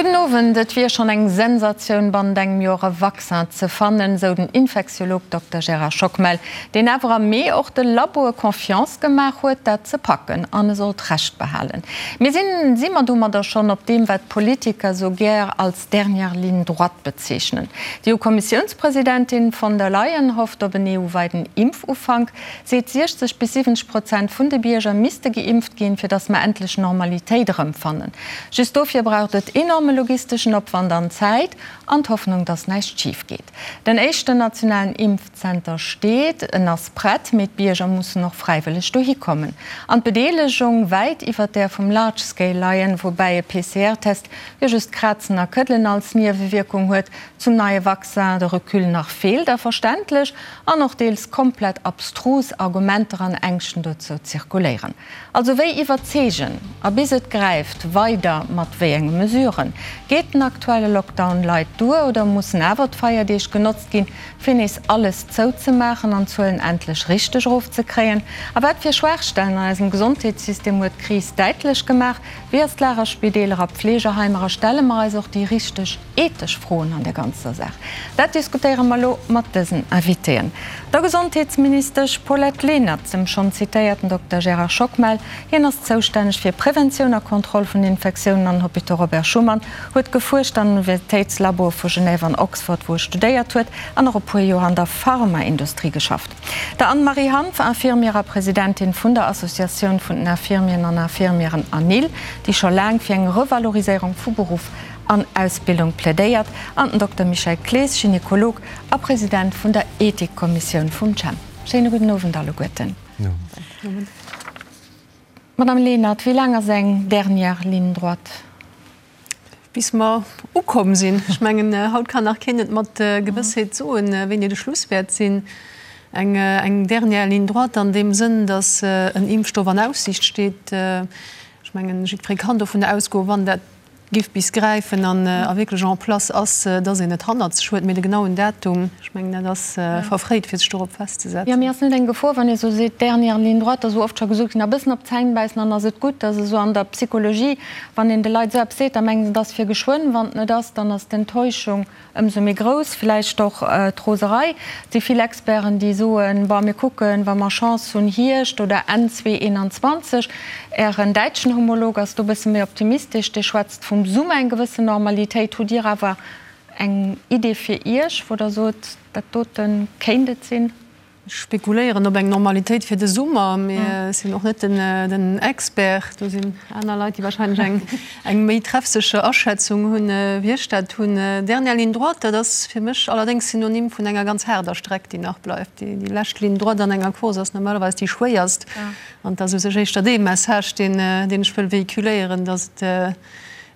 Gudden Owend, Et wier schonn eng Sensatioun bannent engem Joer e Vaccin ze fannen, sou den Infektiolog Dokter Gérard Schockmel, deen awer am Mee och de Laboe Confiance gemaach huet, dat ze packen. An e sollt Recht behalen. Mee sinn si mer domadder schonn op deem, wat d'Politiker sou gär als dernière ligne droite bezeechnen? D'EU-Kommissiounspresidentin von der Leyen hofft op en EU-weiten Impfufank. Seet 60 bis 70 Prozent vun de Bierger misste geimpft ginn, fir datt mer endlech Normalitéit erëmfannen. Just dofir braucht et enorme logisteschen Opwand an Zäit an d'Hoffnung, datt näischt schif geet. Den éischten nationalen Impfzenter steet, en ass prett, mee d'Bierger mussen och fräiwëlleg dohi kommen. An d'Bedeelegung wäit iwwert där vum Large Scale leien, woubäi e PCR-Test jo just Krazen a Këddelen als Niewewierkung huet. Zum neie Vaccin de Recul nach feelt a verständlech an och deels komplett abstrus Argumenter an Ängschten dozou zirkuléieren. Also wéi iwwerzeegen a bis et gräift weider mat wéi enge Mesuren? Geet den aktuelle Lockdown light duer oder mussen awer d'Feierdeeg genotzt ginn, fir nees alles zouzemaachen an d'Zuelen endlech richteg erofzekréien? A wat fir Schwaachstellen an eisem Gesondheetssystem huet d'Kris däitlech gemaach? Wéi ass d'Lag a Spideeler a Pfleegeheimer a stelle mer eis och déi richteg ethesch Froen an der ganzer Saach? Dat diskutéiere mer elo mat dësen Invitéen, der Gesondheetsministesch Paulette Lenert, dem schonn zitéierten Dokter Gérard Schockmel, hien ass zoustänneg fir Preventioun a Kontroll vun Infektiounen an Hôpitaux Robert Schuman, huet gefuerscht an Universitéitslaboe vu Genève an Oxford, wou e studéiert huet, an och e puer Joer an der Pharmaindustrie geschafft. Der Anne-Marie Hanff, Infirmière a Presidentin vun der Associatioun vun den Infirmieren an Infirmièren ANIL, déi scho laang fir eng Revaloriséierung vu Beruff an Ausbildung plädéiert, an den Dokter Michel Clees, Gynekolog a President vun der Ethikkommissioun vum CHEM. Schéine gudden Owend alleguerten. Madame Lenert, wéi laang ass eng dernière ligne droite? Bis mer ukomm sinn. Ech mengen, haut kann nach keen et mat Gewëssheet soen, wéini de Schluss wäert sinn. Eng, eng dernière ligne droite an deem Sënn, datt en Impfstoff an Aussiicht steet. Ech mengen, jiddweree kann dovun ausgoen, wann dat giff bis gräifen an a wierklech en place ass, dass een et hannert sech huet. Mee de genauen Datum, ech mengen, dat ass verfréit, fir sech dorop festzesetzen. Jo, mee ass net eng Gefor, wann ee sou seet, dernière ligne droite, ass esou oft scho gesot ginn, a bëssen op d'Zäin bäissen an ass et gutt, dass esou an der Psychologie, wann een de Leit esou eppes seet, da mengen se, et ass fir geschwënn. Wann et net ass, dann ass d'Enttäuschung Ëmsou méi grouss vläicht och d'Roserei. Et si vill Experten, déi soen, Bon, mir kucken, wa mer Chance hunn, Hierscht oder Enn 2021. Ären däitschen Homolog ass do e bësse méi optimistesch, dee schwätzt vum Summer eng gewëssen Normalitéit. Hutt Dir awer eng Idee fir Iech, wou Der sot, dat dote kéint et sinn? Ech spekuléieren op eng Normalitéit fir de Summer, mee ech sinn och net den Expert. Do sinn aner Leit, déi wahrscheinlech eng méi treffsécher Aschätzung hunn, wéi ech dat hunn. Dernière ligne droite, dat ass fir mech allerdéngs Synonym vun enger ganz haarder Streck, déi nach bleift. Déi lescht Ligne droite an enger Course ass normalerweis déi schwéierst. An et ass u sech éischter dee Message, deen ech wëll véhiculéieren, datt et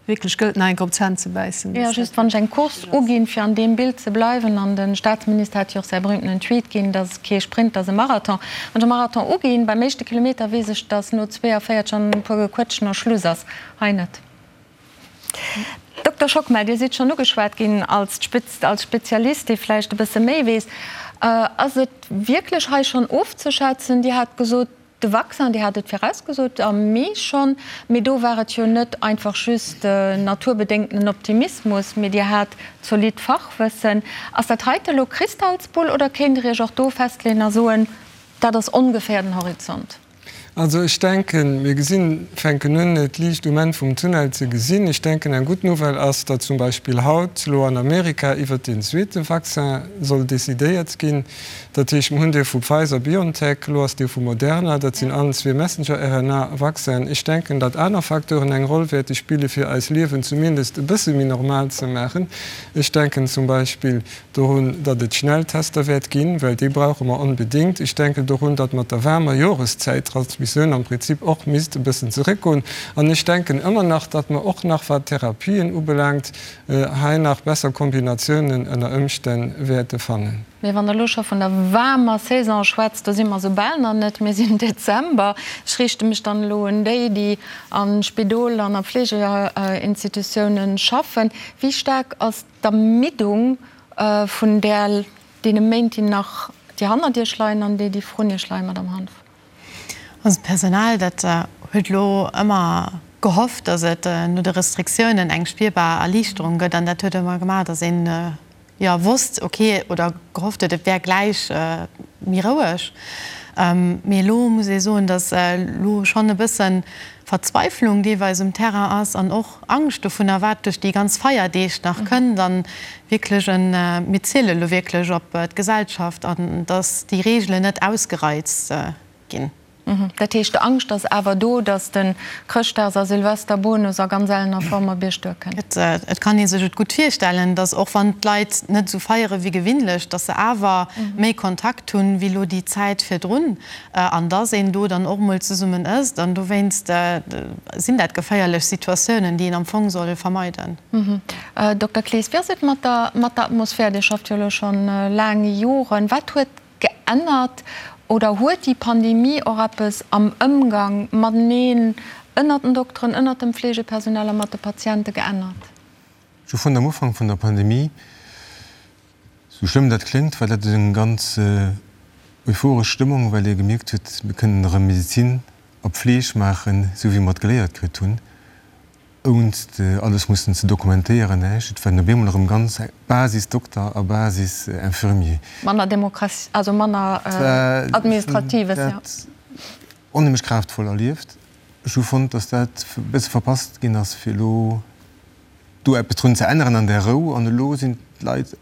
Wierklech gëllt nach eng Kéier op d'Zänn ze bäissen. Jo, just wann ech eng Course uginn, fir an deem Bild ze bleiwen, an de Staatsminister hat jo och säi berühmtenen Tweet ginn, dass kee Sprint ass e Marathon. Wann ech e Marathon uginn, beim éischte Kilometer weess ech, dass no 42 an e puer Gequëtschen a Schluss ass. Hei net. Dokter Schockmel, Dir sidd schonn ugeschwat ginn als als Spezialist, dee vläicht e bësse méi weess. Ass et wierklech hei schonn ofzeschätzen? Dir hat gesot, De Vaccin, Dir hat et virausgesot, am Mee schonn, mee do war et jo net einfach just naturbedéngtenen Optimismus, mee Dir hat zolidd Fachwëssen. Ass dat heite elo Kristallsbull oder kéint Der Iech och do festleeën a soen, dat ass ongeféier den Horizont? Also ech denken, mir gesinn, fänken un, d'Liicht um Enn vum Tunnel ze gesinn. Ech denken, eng gutt Nouvelle ass, datt zum Beispill haut elo an Amerika iwwert deen zweete Vaccin soll decidéiert ginn. Dat heescht, mir hunn dee vu Pfizer-BioNTech, elo ass dee vu Moderna, dat sinn allen zwee Messenger-RNA-Vaccinen. Ech denken, datt aner Facteuren eng Roll wäerte spille fir eis Liewen zumindest e bësse méi normal ze maachen. Ech denken zum Beispill dorun, datt et Schnelltester wäert ginn, well déi brauche mer onbedéngt. Ech denken dorun, datt mat der waarmer Joreszäit d'Transmissioun am Prinzip och misst e bëssen zeréckgoen. An ech denken ëmmer nach, datt mer och nach, wat d'Therapien ubelaangt, hei nach besser Kombinatiounen ënner Ëmstänn wäerte fannen. Mee wann Der elo scho vun der waarmer Saison schwätzt, do si mer esou bal nach net, mir sinn Dezember. Ech riichte mech dann elo un déi, déi a Spidol an a Fleegeinstitutiounen schaffen. Wéi staark ass d'Ermiddung vun där, deene Méint, déi nach, déi hannert Iech leien an déi, déi vrun Iech leien, Madamm Hanff? Also d'Personal, dat huet elo ëmmer. gehofft, datt et no de Restriktiounen eng spierbar Erliichterung gëtt an dat huet ëmmer gemaach, datt een, jo, wosst, ok, oder gehofft huet, et wär gläich méi roueg. Mee elo muss ee soen, datt elo schonn e bësse Verzweiflung deelweis um Terrain ass an och Angscht dovunner, wat duerch déi ganz Feierdeeg nach kënnt. An wierklech en, mir ziele elo wierklech op d'Gesellschaft an datt déi Reegelen net ausgereizt ginn. Dat heescht, d'Angscht ass awer do, datt de Chrëschtdags a Silvesterbonus a ganz ellener Form op Iech duerkënnt? Et kann ee sech et gutt virstellen, datt och wann d'Leit net esou feiere wéi gewinnlech, datt se awer méi Kontakt hunn, wéi elo déi Zäit virdrun an datt een do dann och mol zesummen ësst. An dowéinst sinn dat geféierlech Situatiounen, déi een am Fong soll vermeiden. Dokter Clees, wéi ass et mat der Atmosphär? Dir schafft jo elo schonn laang Joren. Wat huet Geännert oder huet déi Pandemie och eppes am Ëmgang mateneen ënnert den Dokteren, ënnert dem Fleegepersonal a mat de Patiente geännert? Ech hu fonnt, am Ufank vun der Pandemie, sou schlëmm dat kléngt, war dat eng ganz euphoresch Stëmmung, well ee gemierkt huet, mir kënnen erëm Medezin a Pfleeg maachen, sou wéi mer et geléiert kritt hunn. Ounst alles mussen ze dokumentéieren, näischt. Et waren op eemol erëm ganz Basis-Dokter a Basis-Infirmier. Manner Demokratie, also manner Administratives, jo. Dat onheemlech kraaftvoll erlieft. Ech hu fonnt, datt dat e bësse verpasst ginn ass, fir elo do eppes drun ze änneren an där Rou. An elo sinn d'Leit,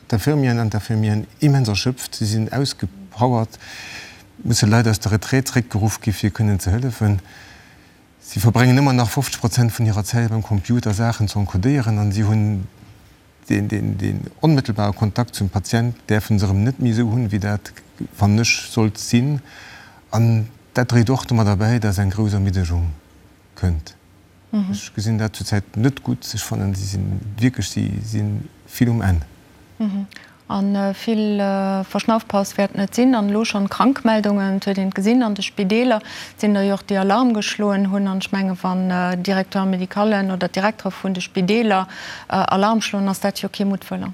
d'Infirmieren an d'Infirmieren immens erschöpft, si sinn ausgepowert, musse Leit aus der Retraite zréckgeruff gi fir kënnen ze hëllefen. Si verbréngen ëmmer nach 50 Prozent vun hirer Zäit beim Computer Saachen ze encodéieren an si hunn deen onmëttelbare Kontakt zum Patient däerfe se erëm net méi esou hunn, wéi dat, fannen ech, sollt sinn. An dat dréit och domadder bäi, dass eng grouss Ermiddegung kënnt. Ech gesinn dat zurzäit net gutt. Ech fannen, si sinn wierklech, si si vill um Enn. A vill Verschnaufpaus wäert net sinn. An elo schonn Krankmeldungen, et huet een et gesinn an de Spideeler, et sinn der jo och, déi Alarm geschloen hunn. An ech menge wann Directeur-médicallen oder d'Direktere vun de Spideeler Alarm schloen, ass dat jo kee Muttwëller.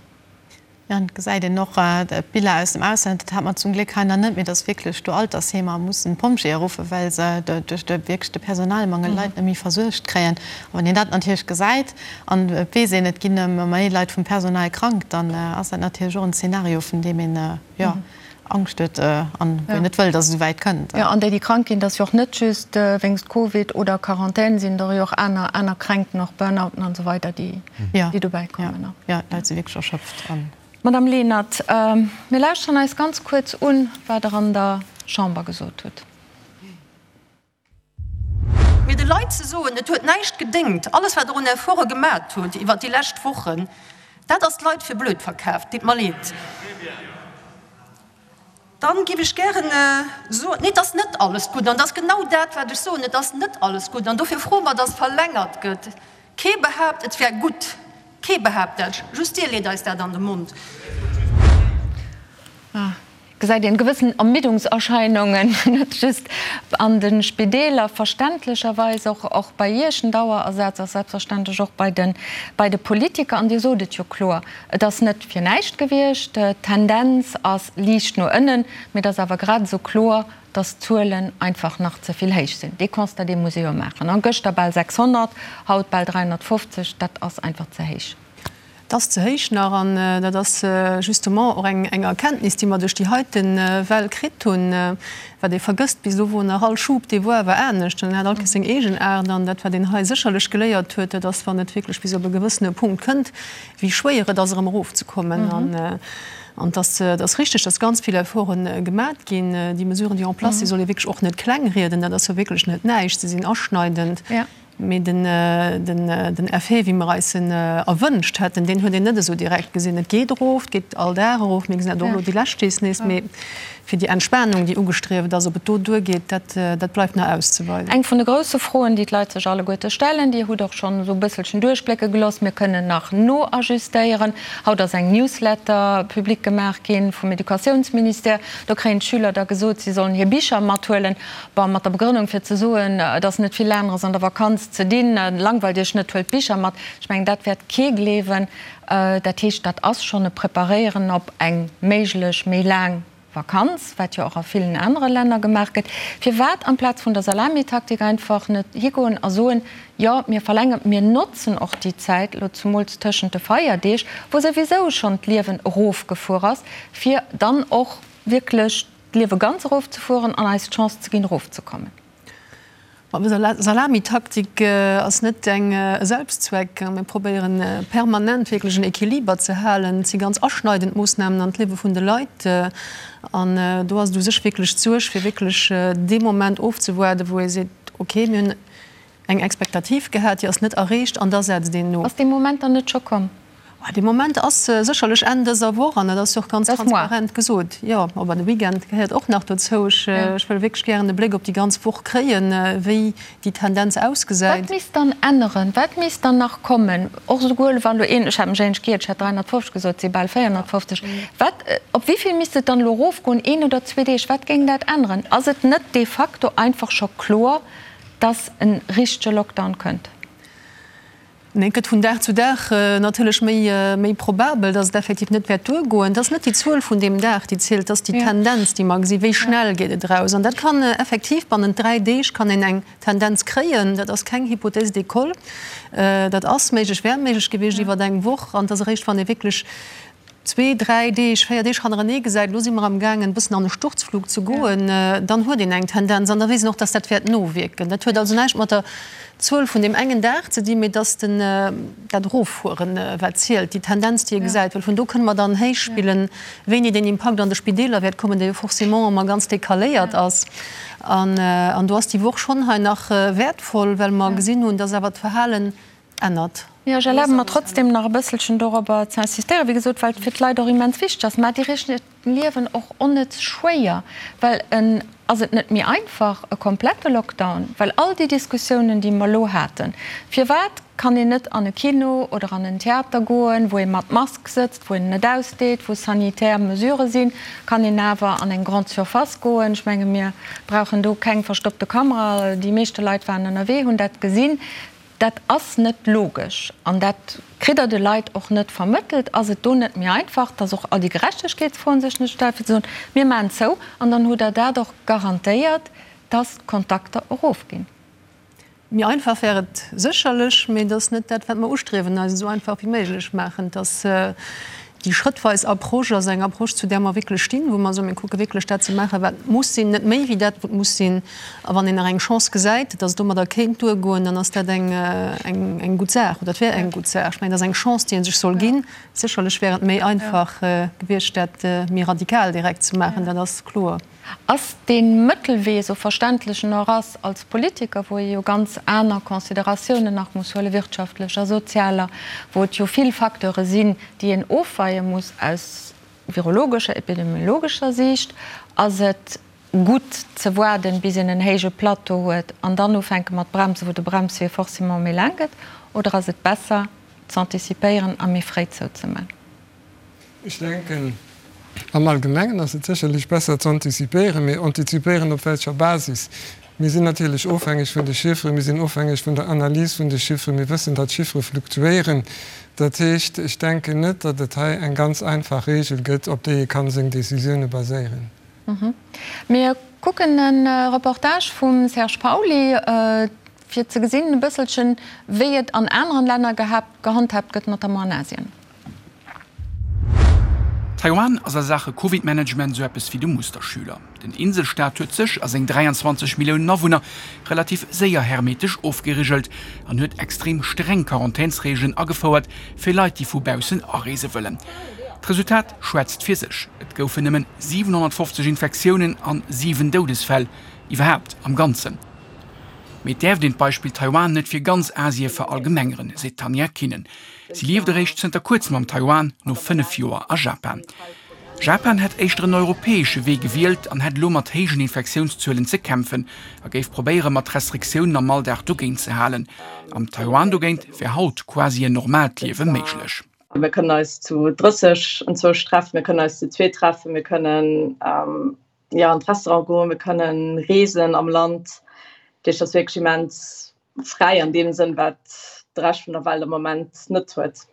Jo, an et gesäit een och d'Biller aus dem Ausland, dat hat mer zum Gléck hei nach net, mee dass wierklech do Altersheemer mussen d'Pompjeeë ruffen, well se duerch de wierklech de Personalmangel d'Leit net méi versuergt kréien. A wann een dat natierlech gesäit, An et weess een, et ginn ëmmer méi Leit vum Personal krank, dann ass dat natierlech och en Zeenario, vun deem een, jo, Angscht huet an wou een net wëll, datt et esou wäit kënnt. Jo, an déi, déi krank ginn, dat ass jo och net just wéinst Covid oder Quarantän, sinn der jo och aner, aner Kränkten, och Burnouten an esou weider, déi, déi dobäi kommen. Jo, jo, d'Leit si wierklech erschöpft. Madame Lenert, mir lauschteren eis ganz kuerz un, wat Der an der Chamber gesot hutt. Mee de Leit ze soen, et huet näischt gedéngt, alles wat Der un Efforte gemat hutt iwwert déi lescht Wochen, dat ass d'Leit fir blöd verkaaft. Deet mer leed. Dann géif ech gären soen, nee, et ass net alles gutt. An et ass genau dat, wat ech soen, et ass net alles gutt. An dofir froe mer, dass verlängert gëtt. Kee behaapt, et wär gutt. Kee behaapt dat. Just Dir leet eis dat an de Mond. Gesäit een gewëssen Ermiddungserscheinungen, net just an de Spideeler, verständlecherweis och och bei Iech. Den Dauerersaz ass selbstverständlech och bei de bei de Politiker. An Dir sot et jo kloer, et ass net fir näischt gewiescht. D'Tendenz ass liicht no ënnen, mee et ass awer grad esou kloer, dass d'Zuelen einfach nach ze vill héich sinn. Dee Constat, dee muss ee jo maachen. A gëschter bal 600, haut bal 350, dat ass einfach ze héich. Et ass ze héich nach an dat ass justement och eng Erkenntnis, déi mer duerch déi heite Well kritt hunn. Wat ee vergësst, bis elo wor nach all Schub, dee wor awer anescht an en hat all Kéiers seng eegen Aart. An dat, wat een hei sécherlech geléiert huet, dat ass, wann et wierklech bis op e gewëssene Punkt kënnt, wéi schwéier et ass, erëm erofzekommen. An et ass, et ass richtig, dass ganz vill Efforte gemat ginn. Déi Mesuren, déi en place sinn, soll ee wierklech och net klengrieden. Dat ass jo wierklech net näischt. Se sinn aschneidend. Mee den Effet, wéi mer eis en erwënscht hätten, deen huet een net esou direkt gesinn. Et geet erof, et geet all Dag erof, mir gesinn dat och elo déi lescht Deeg nees. Mee fir déi Entspanung, déi ugestrieft ass, ob et do duergeet, dat, dat bleift nach auszeweisen. Eng vun de grousse Froen, déi d'Leit sech alleguerte stellen, Dir hutt och schonn esou e bësselchen duerchblécke gelooss, mir kënnen nach noajustéieren. Haut ass eng Newsletter public gemaach gi vum Educatiounsministère. Do kréien d'Schüler da gesot, si sollen hir Bicher mathuelen. Bon, mat der Begrënnung fir ze soen, et ass net vill aneres an der Vakanz ze dinn, langweilt Iech net, huelt d'Bicher mat. Ech mengen, dat wäert kee gleewen. Dat heescht, dat ass schonn e Preparéieren op eng méiglech méi laang. Vakanz, wat jo och a villen anere Länner gemaach gëtt. Firwat amplaz vun der Salamitaktik einfach net higoen a soen, Jo, mir verlängeren, mir notzen och déi Zäit, elo zumools tëschent de Feierdeeg, wou souwisou schonn d'Liewen erofgefuer ass, fir dann och wierklech d'Liewe ganz erofzefueren an eis d'Chance ze ginn, erofzekommen. Salamitaktik ass net eng e Selbstzweck. Mir probéieren permanent wierklech en Equiliber ze halen. Et si ganz aschneidend Moossnamen an d'Liewe vun de Leit. An do ass et u sech wierklech d'Suerg, fir wierklech dee Moment ofzewaarden, wou ee seet, okay, mir hunn eng Expectative gehat, déi ass net erreecht an da setzt een no. Ass dee Moment dann net scho komm? Dee Moment ass sécherlech Enn dëser Woch an dat ass jo och ganz transparent gesot. Jo, awer de Weekend gehéiert och nach dozou. Ech wëll wierklech gären e Bléck op déi ganz Woch kréien, wéi déi Tendenz ausgesäit. Wat misst dann änneren? Wat misst dann nach kommen? Och esouguer wa lo een, ech hat mech éinescht giert, ech hat 350 gesot, et si bal 450. Wat, op wéi vill misst et dann elo erofgoen, een oder zwee Deeg? Wat géing dat änneren? Ass et net de facto einfach scho kloer, dass e richtege Lockdown kënnt? Nee, et gëtt vun Dag zu Dag natierlech méi, méi probabel, dass et effektiv net wäert duergoen. Et ass net déi Zuel vun deem Dag, déi zielt, et ass déi Tendenz, déi mer gesinn, wéi schnell geet et eraus. An dat kann effektiv bannent 3 Deeg kann een eng Tendenz kréien. Dat ass keng Hypothèse d'école. Dat ass méiglech, wär méiglech gewiescht iwwer eng Woch. An et ass eréischt, wann ee wierklech zwee, dräi Deeg, véier Deeg hannerenee gesäit, elo si mer amgaangen e bëssen an e Sturzflug ze goen, dann huet een eng Tendenz an da weess een och, dass dat wäert nowierken. Dat huet also näischt mat der Zuel vun deem engen Dag ze dinn, mee dass den, dat Eroffueren, wat zielt, déi Tendenz, déi ee gesäit, well vun do kënne mer dann héichspillen, wéini deen Impakt an de Spideeler wäert kommen, dee jo forcément ëmmer ganz decaléiert ass. An do ass déi Woch schonn hei nach wäertvoll, well mer gesinn hunn, dass awer d'Verhalen ännert. Jo, ech erlabe mer trotzdem nach e bësselchen dorobber ze insistéieren, wéi gesot, well et fir d'Leit och immens wichteg ass. Mä Dir riicht hiert Liewen och onnëtz schwéier, well en ass et net méi einfach, e komplette Lockdown, well all déi Diskussiounen, déi mer elo haten, firwat kann een net an e Kino oder an en Theater goen, wou ee mat Mask sëtzt, wou een net ausdeet, wou sanitär Mesurë sinn, kann een awer an eng Grande Surface goen. Ech menge mir brauchen do keng verstoppte Kamera, déi meeschte Leit waren ënnerwee, hunn dat gesinn. Dat ass net logesch an dat kritt Der de Leit och net vermëttelt. Ass et do net méi einfach, dass och all déi Gerechtegkeetsfroen sech net stellen, fir ze soen, mir maachen zou an dann hutt Der dat och garantéiert, dass d'Kontakter erofginn? Méi einfach wär et sécherlech, mee et ass net dat, wat mer ustriewen, eis et esou einfach wéi méiglech maachen. Et ass Déi schrëttweis Approche ass eng Approche, zu där mer wierklech stinn, wou mer soen, mir kucke wierklech dat ze maachen, wat muss sinn, net méi wéi dat, wat muss sinn. A wann een nach eng Chance gesäit, datt et domadder kéint duergoen, dann ass dat eng, eng gutt Saach oder et wär eng gutt Saach. Ech mengen, dat ass eng Chance, déi ee sech soll ginn. Sécherlech wär et méi einfach gewiescht, dat méi radikal direkt ze maachen, dat ass kloer. Ass dee Mëttelwee, esou verständlech en och ass als Politiker, wou ee jo ganz aner Consideratiounen nach muss huelen, wirtschaftlecher, sozialer, wou et jo vill Facteure sinn, déi een ofweie muss aus virologescher, epidemiologescher Siicht, ass et gutt ze waarden, bis een en héije Plateau huet an dann ufänke mat bremsen, wou de Bremswee forcément méi laang gëtt, oder ass et besser z'antizipéieren a méi fréi zouzemaachen? Ech denken, am Allgemengen ass et sécherlech besser z'antizipéieren, mee antizipéieren op welcher Basis? Mir sinn natierlech ofhängeg vun de Chifferen, mir sinn ofhängeg vun der Analys vun de Chifferen, mir wëssen, datt d'Chiffere fluktuéieren. Dat heescht, ech denken net, datt et hei eng ganz einfach Regel gëtt, op déi ee kann seng Décisioune baséieren. Mir kucken e Reportage vum Serge Pauly, fir ze gesinn e bësselchen, wéi et an aneren Länner gehandhaabt gëtt, notamment an Asien. Taiwan ass a Saache Covid-Management esou eppes wéi de Musterschüler. Den Inselstaat huet sech a seng 23 Milliounen Awunner relativ séier hermetesch ofgerigelt an huet extrem streng Quarantänsreegelen agefouert fir Leit, déi vu baussen areese wëllen. D'Resultat schwätzt fir sech, Et goufen nëmmen 750 Infektiounen an 7 Doudesfäll iwwerhaapt am Ganzen. Mee et däerft een d'Beispill Taiwan net fir ganz Asie verallgemengeren, seet d'Tanja Kinen. Si lieft eréischt zënter kuerzem am Taiwan, no 5 Joer a Japan. Japan hätt éischter en europäesche Wee gewielt an hätt elo mat héijen Infektiounszuelen ze kämpfen a géif probéiere mat Restriktiounen am Alldag dogéint ze halen. Am Taiwan dogéint wär haut quasi en normaalt Liewe méiglech. Mir kënnen eis zu 30 enzwousch treffen, mir kënnen eis zu zweet treffen, mir kënnen jo an d'Restaurant goen, mir kënnen reesen am Land. Dat heescht, et ass wierklech immens fräi an deem Sënn, wat de Rescht vun der Welt am Moment net huet.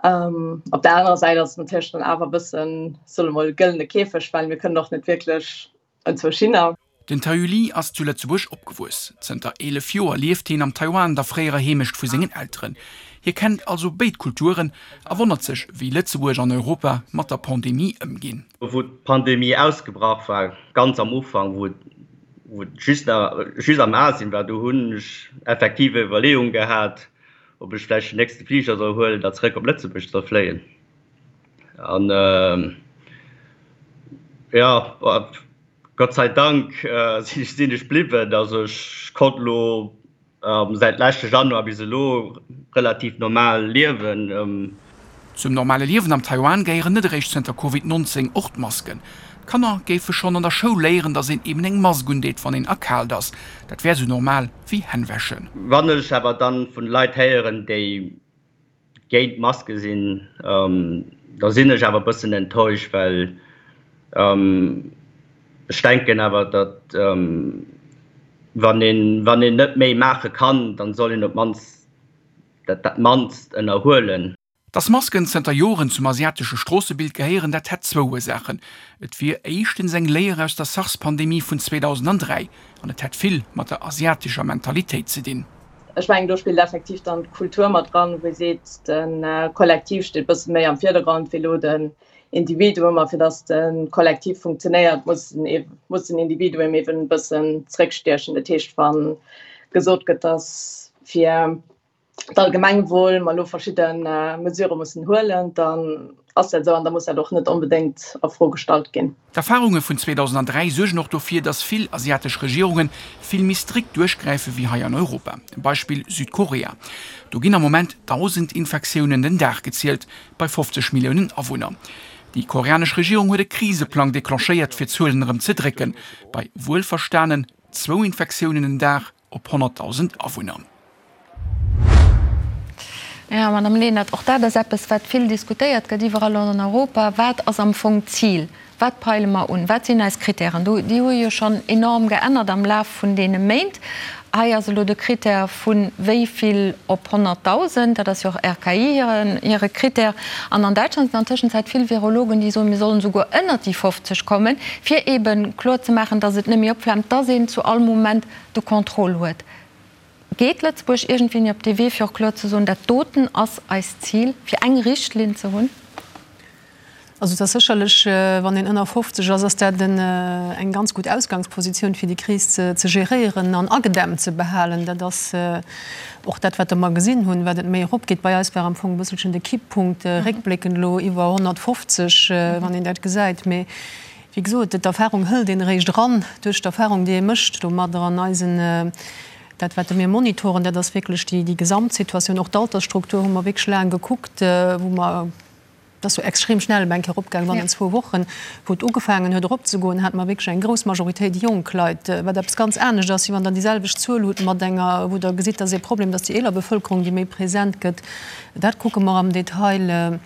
Op der anerer Säit ass et natierlech dann awer e bëssen, soe mol, gëllene Käfeg, well mir kënnen och net wierklech enzwousch hinner. Den Taeyu Lee ass zu Lëtzebuerg opgewuess. Zënter 11 Joer lieft hien am Taiwan, der fréierer Heemecht vu sengen Elteren. Hie kennt also béid Kulturen a wonnert sech, wéi Lëtzebuerg an Europa mat der Pandemie ëmginn. Wou d'Pandemie ausgebrach war, ganz am Ufank, wou et just nach just am Asien war, do hunn ech effektiv Iwwerleeung gehat, ob ech vläicht den nächste Fliger soll huelen a zeréck op Lëtzebuerg soll fléien. An jo, Gott sei Dank sinn ech bliwwen. Also ech konnt elo säit leschte Januar bis elo relativ normal liewen. Zum normale Liewen am Taiwan gehéieren net eréischt zënter Covid 19 och d'Masken. D'Kanner géife schonn an der Schoul léieren, datt een eben eng Mask undeet, wann een erkaalt ass. Dat wär sou normal wéi Hänn wäschen. Wann ech awer dann vun Leit héieren, déi géint Maske sinn, da sinn ech awer e bëssen enttäuscht, well ech denken awer, datt wann een, wann een net méi maache kann, dann soll een op d'mannst dat dat mannst ënnerhuelen. Dass Masken zënter Joren zum asiatesche Stroossebild gehéieren, dat hätt zwou Ursaachen, Et wier éischtens eng Léier aus der SARS-Pandemie vun 2003 an et hätt vill mat der asiatescher Mentalitéit ze dinn. Ech mengen, do spillt effektiv dann d'Kultur mat dran, wou ee seet, de Kollektiv steet e bësse méi am Virdergrond wéi elo den Individuum. A fir datt de Kollektiv funktionéiert, muss muss den Individuum eeben e bëssen zréckstiechen. Dat heescht, wa gesot gëtt, datt fir d'Allgemengwuel mer elo verschidde Mesurë mussen huelen, dann ass dat esou an da muss dat och net onbedéngt a Fro gestallt ginn. D'Erfarunge vun 2003 suergen och dofir, datt vill asiatesch Regierunge vill méi strikt duerchgräife wéi hei an Europa. Beispill Südkorea, Do ginn am Moment 1.000 Infektiounen den Dag gezielt, bei 50 Milliounen Awunner. Déi koreanesch Regierung huet e Kriseplang declenchéiert, fir d'Zuelen erëm ze drécken, bei wuelverstanen zwou Infektiounen den Dag op 100.000 Awunner. Jo, Madame Lenert, och dat ass eppes, wat vill diskutéiert gëtt iwwerall an Europa. Wat ass am Fong d'Zil? Wat peile mer un? Wat sinn eis Kritären? Do, déi hu jo schonn enorm geännert am Laf vun deene Méint. Hei ass elo de Kritär vu wéi vill op 100.000, dat ass jo och RKI hiren, hire Kritär. An an Däitschland sinn an Tëschenzäit vill Virologen, déi soen, mir sollen esouguer ënnert déi 50 kommen, fir eebe kloer ze maachen, datt et net méi opflaamt, datt een zu all Moment de Contrôle huet. Geet Lëtzebuerg iergendwéini op dee Wee, fir och kloer ze soen, dat doten ass eist Zil, fir eng Richtlinn ze hunn? Also et ass sécherlech, wann een ënner 50 ass, ass dat eng ganz gutt Ausgangspositioun, fir déi Kris ze geréieren an agedämmt ze behalen. Dat ass och dat, wat mer gesinn hunn, wat et méi eropgeet. Bei eis war am Fong e bësselchen de Kipppunkt réckbléckend elo iwwer 150, wann een dat gesäit. Mee Wéi gesot, d'Erfahrung hëlt een eréischt eran duerch d'Erfahrung, déi ee mécht domadder. An eisen, dat wat mir monitoren, dat ass wierklech déi Gesamtsituatioun. Och d'Altersstruktur hu mer wierklech laang gekuckt, wou mer, dat ass jo extrem schnell eng Kéier eropgaangen, bannent zwou Wochen, wou et ugefaangen huet eropzegoen, hate mer wierklech eng grouss Majoritéit jonk Leit, wat eppes ganz anescht ass, wéi wann Der déi selwecht Zuel hutt mat enger, wou Der gesitt, dass ee Problem, dass déi eeler Bevëlkerung, déi méi present gëtt. Dat kucke mer am Detail.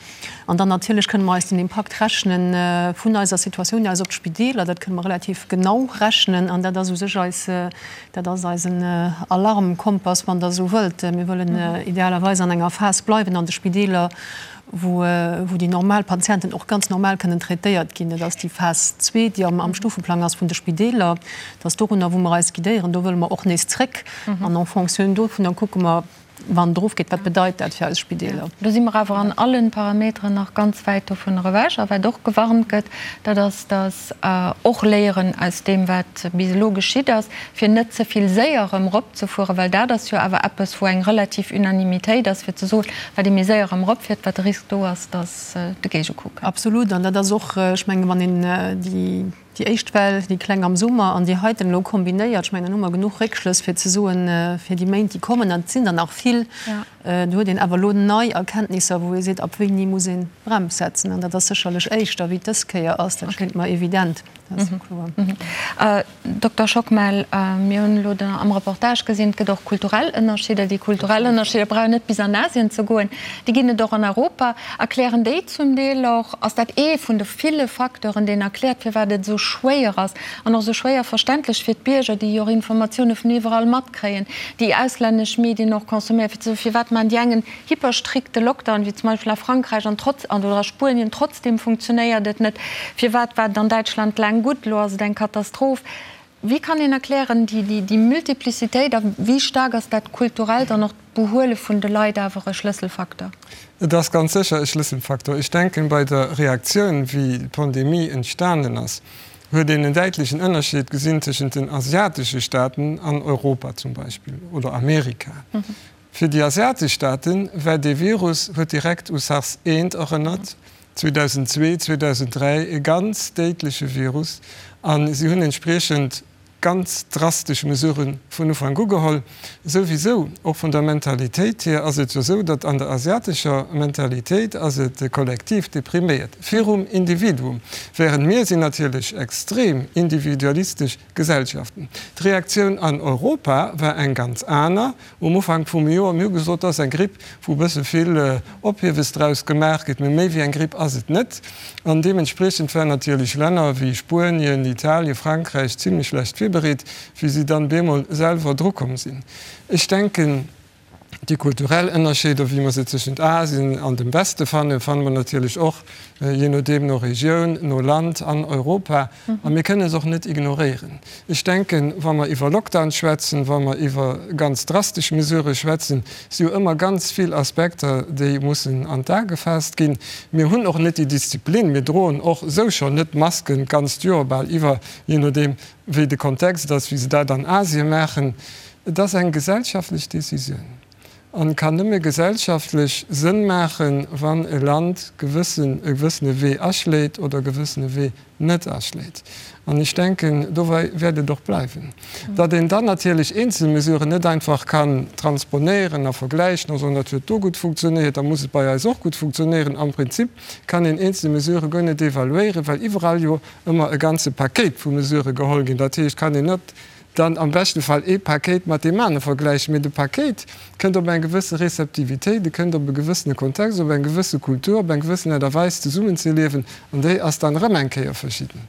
An dann natierlech kënne mer eis den Impakt rechne vun eiser Situatioun aus op d'Spideeler. Dat kënne mer relativ genau rechnen an dat ass u sech eis, dat ass eisen Alarmkompass, wann Der esou wëllt. Mir wëllen idealerweis an enger Phas bleiwen an de Spideeler, wou, wou déi normal Patienten och ganz normal kënnen traitéiert ginn. Dat ass déi Phas zwee, déi am Stufeplang ass vun de Spideeler. Dat ass dorunner, wou mer eis guidéieren. Do wëlle mer och nees zréck an en fonction dovunner kucke mer, Wann et erofgeet, wat bedeit dat fir eis Spideeler? Do si mer awer an allen Parameteren nach ganz wäit dovunner ewech. A wat och gewarnt gëtt, dat ass, dass och Léieren aus deem, wat bis elo geschitt ass, fir net ze vill séier erëm eropzefueren, well dat ass jo awer eppes, wou eng relativ Unanimitéit ass, fir ze soen, wat ee méi séier erëm eropfiert, wat de Risk do ass, dass de Géigecoup kënnt. Absolut. An dat ass och, ech mengen, wann een déi Déi éischt Well, déi kleng am Summer, an déi heiten elo kombinéiert, ech mengen, dann hu mer genuch Réckschlëss fir ze soen, fir déi Méint, déi kommen, an et sinn der nach vill, do huet een awer elo nei Erkenntnisser, wou ee seet, ab wéini muss een d'Brems setzen. An dat ass sécherlech éischter, wéi et dës Kéier ass, dat schéngt mer evident. Dat ass jo kloer. Dokter Schockmel, mir hunn elo am Reportage gesinn, et gëtt och kulturell Ënnerscheeder. Déi kulturell Ënnerscheeder brauch een net bis an Asien ze goen, déi ginn et och an Europa. Erklären déi zum Deel och, ass dat ee vun de ville Facteuren, deen erkläert, firwat et esou schwéier ass an och esou schwéier verständlech fir d'Bierger, déi jo och Informatioune vun iwwerall matkréien, déi auslännesch Medien och consomméieren, fir ze soen, firwat maachen déi eng en hyperstrikte Lockdown, wéi zum Beispill a Frankräich an trotz, oder a Spuenien, trotzdem funktionéiert et net. Firwat war et an Däitschland laang gutt, elo ass et eng Katastroph? Wéi kann een erklären déi, déi Multiplicitéit a wéi staark ass dat kulturellt an och d'Behuele vun de Leit awer e Schlësselfaktor? Et ass ganz sécher e Schlësselfaktor. Ech denken, bei der Reaktioun, wéi d'Pandemie entstanen ass, huet een en däitlechen Ënnerscheed gesinn tëschent den asiatesche Staaten an Europa zum Beispill oder Amerika. Fir déi asiatesch Staaten war dee Virus, huet direkt u SARS I erënnert, 2002, 2003, e ganz déidleche Virus a si hunn entspriechend ganz drastesch Mesurë vun Ufank u geholl. Souwisou, och vun der Mentalitéit hier ass et jo esou, datt an der asiatescher Mentalitéit ass et de Kollektiv, dee priméiert virum Individuum, während mir sinn natierlech extrem individualistesch Gesellschaften. D'Reaktioun an Europa war eng ganz aner. Um Ufank vum Joer, mir hu gesot, dat ass eng Gripp, wou e bësse vill Ophiewes draus gemaach gëtt, mee méi wéi eng Gripp ass et net. An deementspriechend waren natierlech Länner wéi Spuenien, Italien, Frankräich zimlech schlecht virbereet, wéi si dann bemol selwer drukomm sinn. Ech denken, déi kulturell Ënnerscheeder, wéi mer se tëschent Asien an dem Weste fannen, fanne mer natierlech och, jee nodeem, no Regioun, no Land an Europa. A mir kënne se och net ignoréieren. Ech denken, wa mer iwwer Lockdown schwätzen, wa mer iwwer ganz drastesch Mesurë schwätzen, si jo ëmmer ganz vill Aspekter, déi mussen an d'A gefaasst ginn. Mir hunn och net déi Disziplin, mir droen och esou schonn net d'Masken d'ganzt Joer bal iwwer, jee nodeem wéi de Kontext ass, wéi se dat an Asien maachen. Et ass eng gesellschaftlech Décisioun an kann nëmme gesellschaftlech Sënn maachen, wann e Land gewëssen, e gewëssene Wee aschléit oder e gewëssene Wee net aschléit. An ech denken, dobäi wäert et och bleiwen. Datt een dann natierlech eenzel Mesuren net einfach kann transponéieren a vergläichen a soen, dat huet do gutt funktionéiert, da muss et bei eis och gutt funktionéieren. Am Prinzip kann een eenzel Mesurë guer net evaluéieren, well iwwerall jo ëmmer e ganze Pakéit vu Mesurë geholl ginn. Dat heescht, kann een net dann am beschte Fall ee Pakéit mat deem anere vergläichen, mee de Pakéit kënnt op eng gewësse Receptivitéit, e kënnt op e gewëssene Kontext, op eng gewësse Kultur, op eng gewëssen Aart a Weis zesummenzeliewen, an déi ass dann erëm eng Kéier verschidden.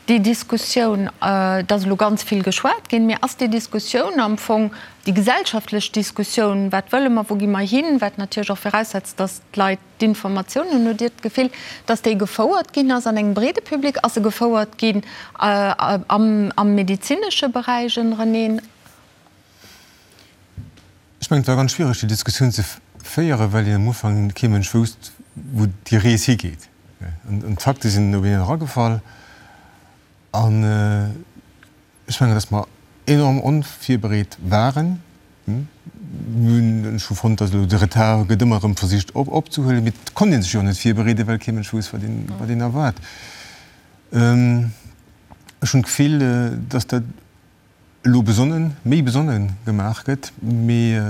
Déi Diskussioun, et ass elo ganz vill geschwat ginn, mee ass déi Diskussioun am Fong, déi gesellschaftlech Diskussioun, wat wëlle mer, wou gi mer hin, wat natierlech och viraussetzt, datt d'Leit D'Informatioun, hunn hutt Dir d'Gefill, datt déi gefouert ginn ass an engem breede Public? Ass se gefouert ginn am medezinesche Beräich ënnereneen? Ech mengen, et war ganz schwiereg, déi Diskussioun ze féieren, well een am Ufank kee Mënsch wousst, wou déi Rees higeet. An d'Fakte sinn op een eragefall. An Ech mengen, dass mer enorm onvirbereet waren. Mir hunn, ech hu fonnt, dass elo de Retard gëtt ëmmer erëm versicht opzehuelen, mee et konnt ee sech jo net virbereeden, well kee Mënsch wousst, wat een, wat een erwaart. Ech hunn d'Gefill, dass dat elo besonnen, méi besonnen gemaach gëtt, mee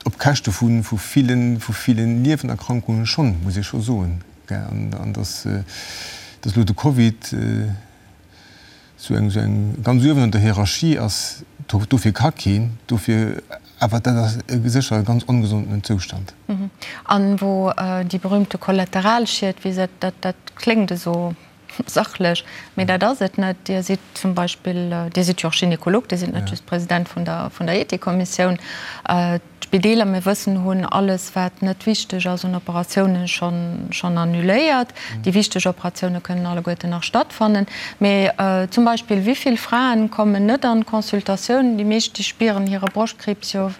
op Käschte vu villen, vu villen Niewenerkrankungen schonn, muss ee scho soen. An dass, dass elo de Covid esou eng, esou eng ganz uewen an der Hierarchie ass, dofir ka keen, dofir, awer dat ass sécher e ganz ongesonden Zoustand. An wou déi berühmte Kollateralschied, wéi se, dat, dat kléngt esou Sachlech, mee dat ass et net. Dir sidd zum Beispill, Dir sidd jo och Gynekolog, Dir sidd net just President vun der, vun der Ethikkommissioun. D'Spideeler, mir wëssen, hunn alles, wat net wichteg ass un Operatiounen, schonn, schonn annuléiert. Déi wichteg Operatioune kënnen alleguerten nach stattfannen. Mee zum Beispill, wéi vill Fraen kommen net an d'Consultatioun? Déi meescht, déi spieren hire Broschtkriibs jo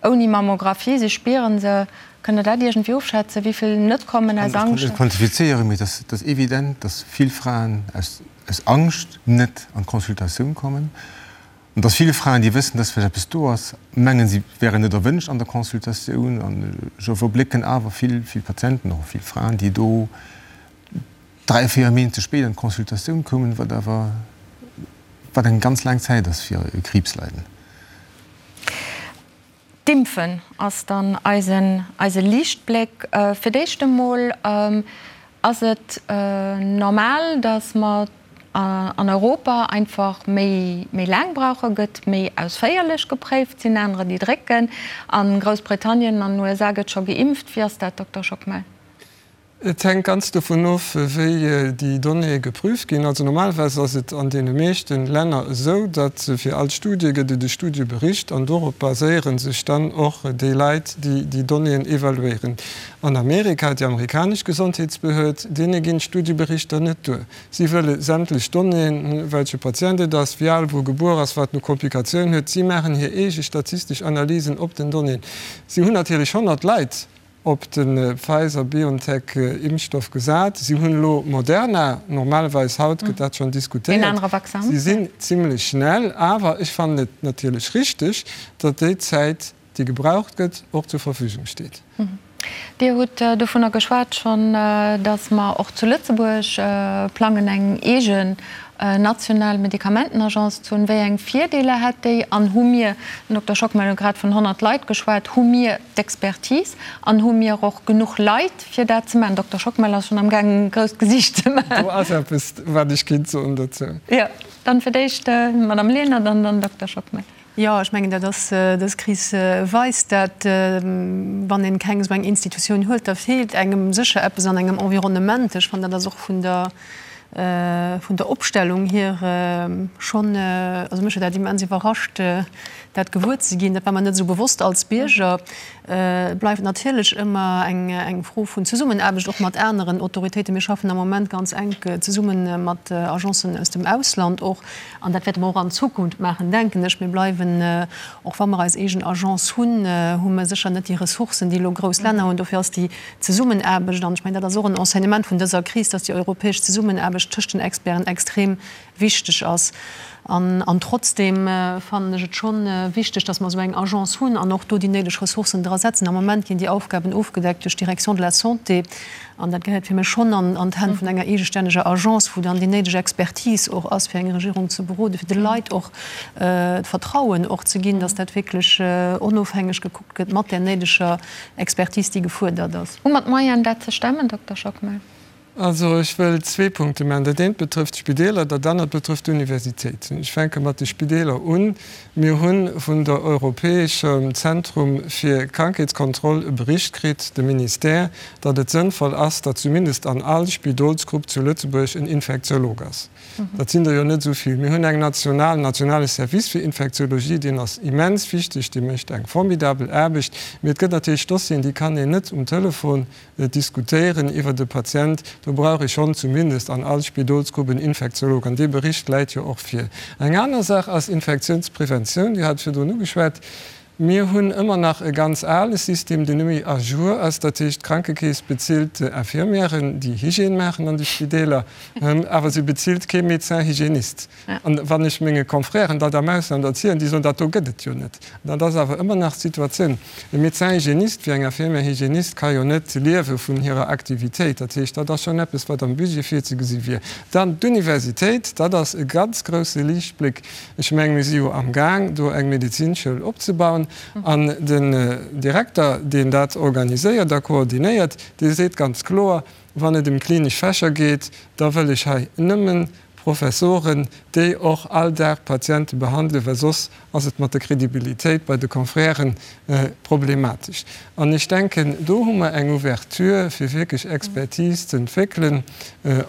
Ouni Mammographie, se spieren se. Kënnt Der dat iergendwéi ofschätzen, wéi vill net kommen aus Ech kann Angscht? net quantifizéieren, mee et ass evident, dass vill Fraen aus Angscht net an d'Consultatioun kommen. An dass vill Fraen, déi wëssen, dass vläicht eppes do ass, mengen, si wären net erwënscht an der Consultatioun. An ech iwwerblécken awer vill, vill Patienten, och vill Fraen, déi do 3, 4 Méint ze spéit an d'Consultatioun koumen, wat awer, wat eng ganz laang Zäit ass fir e Kriibsleiden. D'Impfen ass dann eisen, eise Liichtbléck. Fir d'éischt emol. Ass et normal, datt mer an Europa einfach méi méi laang brauchen? Gëtt méi ausféierlech gepréift? Sinn anerer déi drécken? A Groussbritannien an den USA gëtt scho geimpft. Wéi ass dat, Dokter Schockmel? Et hänkt ganz dovun of, wéi déi Donnéeë geprüft ginn. Also normalerweis ass et an deene meeschte Länner esou, datt fir all Studie gëtt et e Studiebericht an dorop baséiere sech dann och déi Leit, déi déi Donnéeën evaluéieren. An Amerika, déi amerikanesch Gesondheetsbehörd, deene ginn d'Studieberichter net duer. Si wëlle sämtlech Donnéeën, welche Patient et ass, wéi al, wou e gebuer ass, wat en u Komplikatiounen huet. Si maachen hir eege statistesch Analysen op den Donnéeën. Si hunn natierlech 100 Leit op de Pfizer-BioNTech-Impfstoff gesat. Si hunn elo Moderna, normalerweis haut gëtt dat schonn diskutéiert. Si sinn zimlech schnell, awer ech fannen et natierlech richteg, datt déi Zäit, déi gebraucht gëtt, och zur Verfügung steet. Dir hutt dovunner geschwat schonn, datt mer och zu Lëtzebuerg plangen, eng eegen national Medikamentenagence ze hunn. Wéi eng Virdeeler hätt déi? An hu mir, den Dokter Schockmel huet grad vun 100 Leit geschwat, hu mir d'Expertise an hu mir och genuch Leit, fir dat ze maachen? Dokter Schockmel ass schonn am gaangen, e grousst Gesiicht ze maachen. Do ass eppes, wat ech kéint soen dozou. Jo, dann fir d'éischt d'Madame Lenert an dann Dokter Schockmel. Jo, ech mengen, dat ass, dës Kris weist dat, wann een keng esou eng Institutioun huet, da feelt engem sécher eppes an engem Environnement. Ech fannen, dat ass och vun der, vun der Opstellung hier schonn, also mech huet dat immens iwwerrascht, dat gewuer ze ginn. Dat war mer net esou bewosst als Bierger. Et bleift natierlech ëmmer eng Fro vun Zesummenaarbecht, och mat aneren Autoritéiten. Mir schaffen am Moment ganz enk zesumme mat Agencen aus dem Ausland och. An dat wäerte mer och an Zukunft maachen, denken ech. Mir bleiwen, och wa mer eis eegen Agence hunn, hu mer sécher net déi Ressourcen, déi elo grouss Länner hunn. Dofir ass déi Zesummenaarbecht, an ech mengen, dat ass och en Enseignement vun dëser Kris, dass déi europäesch Zesummenaarbecht tëscht den Experten extrem wichteg ass. An trotzdeem fannen ech et scho wichteg, dass mer esou eng Agence hunn an och do déi néideg Ressourcen dra setzen. Am Moment ginn déi Aufgaben ofgedeckt duerch d'Direction de la Santé an dat gehéiert fir mech schonn an d'Hänn vun enger eegestänneger Agence, wou dann déi néideg Expertise och ass, fir eng Regierung ze beroden, fir de Leit och d'Vertrauen och ze ginn, dass dat wierklech onofhängeg gekuckt gëtt mat där néideger Expertise, déi gefuerdert ass. Hu mer d'Moyenen, dat ze stemmen, Dokter Schockmel? Also ech wëll zwee Punkte maachen. Dat eent betrëfft d'Spideeler, dat anert betrëfft d'Universitéit. Ech fänke mat de Spideeler un. Mir hu vun der Europäeschem Zentrum fir Krankheetskontroll e Bericht kritt, de Ministère, datt et sënnvoll ass, datt zumindest an all Spidolsgrupp zu Lëtzebuerg en Infektiolog ass. Dat sinn der jo net esou vill. Mir hunn eng national, en nationale Service fir Infektiologie, deen ass immens wichteg, dee mécht eng formidabel Aarbecht. Mee et gëtt natierlech Dossieren, déi kann een net um Telefon Diskutéieren iwwert e Patient, do brauch ee schonn zumindest an all Spidolsgrupp en Infektiolog. An dee Bericht läit jo och vir. Eng aner Saach ass Infektiounspreventioun. Dir hat et virdrun ugeschwat. Mir hunn ëmmer nach e ganz ale System, deen net méi à jour ass. Dat heescht, d'Krankekeess bezilt Infirmièren, déi Hygiène maachen an de Spideeler, awer si bezilt kee Médecin hygiéniste. An wann ech menge Confrèren dat am Ausland erzielen, déi soen, dat do gëtt et jo net. Dat ass awer ëmmer nach d'Situatioun. E Médecin hygiéniste wéi eng Infirmière hygiéniste ka jo net liewe vun hirer Aktivitéit. Dat heescht, dat ass schonn eppes, wat am Budget virzegesi wier. Dann d'Universitéit, dat ass e ganz grousse Liichtbléck. Ech mengen, mir si jo amgaang, do eng Medezinschoul opzebauen. An den Direkter, deen dat organiséiert a koordinéiert, dee seet ganz kloer, Wann et ëm klinesch Fächer geet, da wëll ech hei nëmmen Professoren, déi och all Dag Patiente behandelen, well soss ass et mat der Kredibilitéit bei de Confrèren problematesch. An ech denken, do hu mer eng Ouverture, fir wierklech Expertise ze entwéckelen,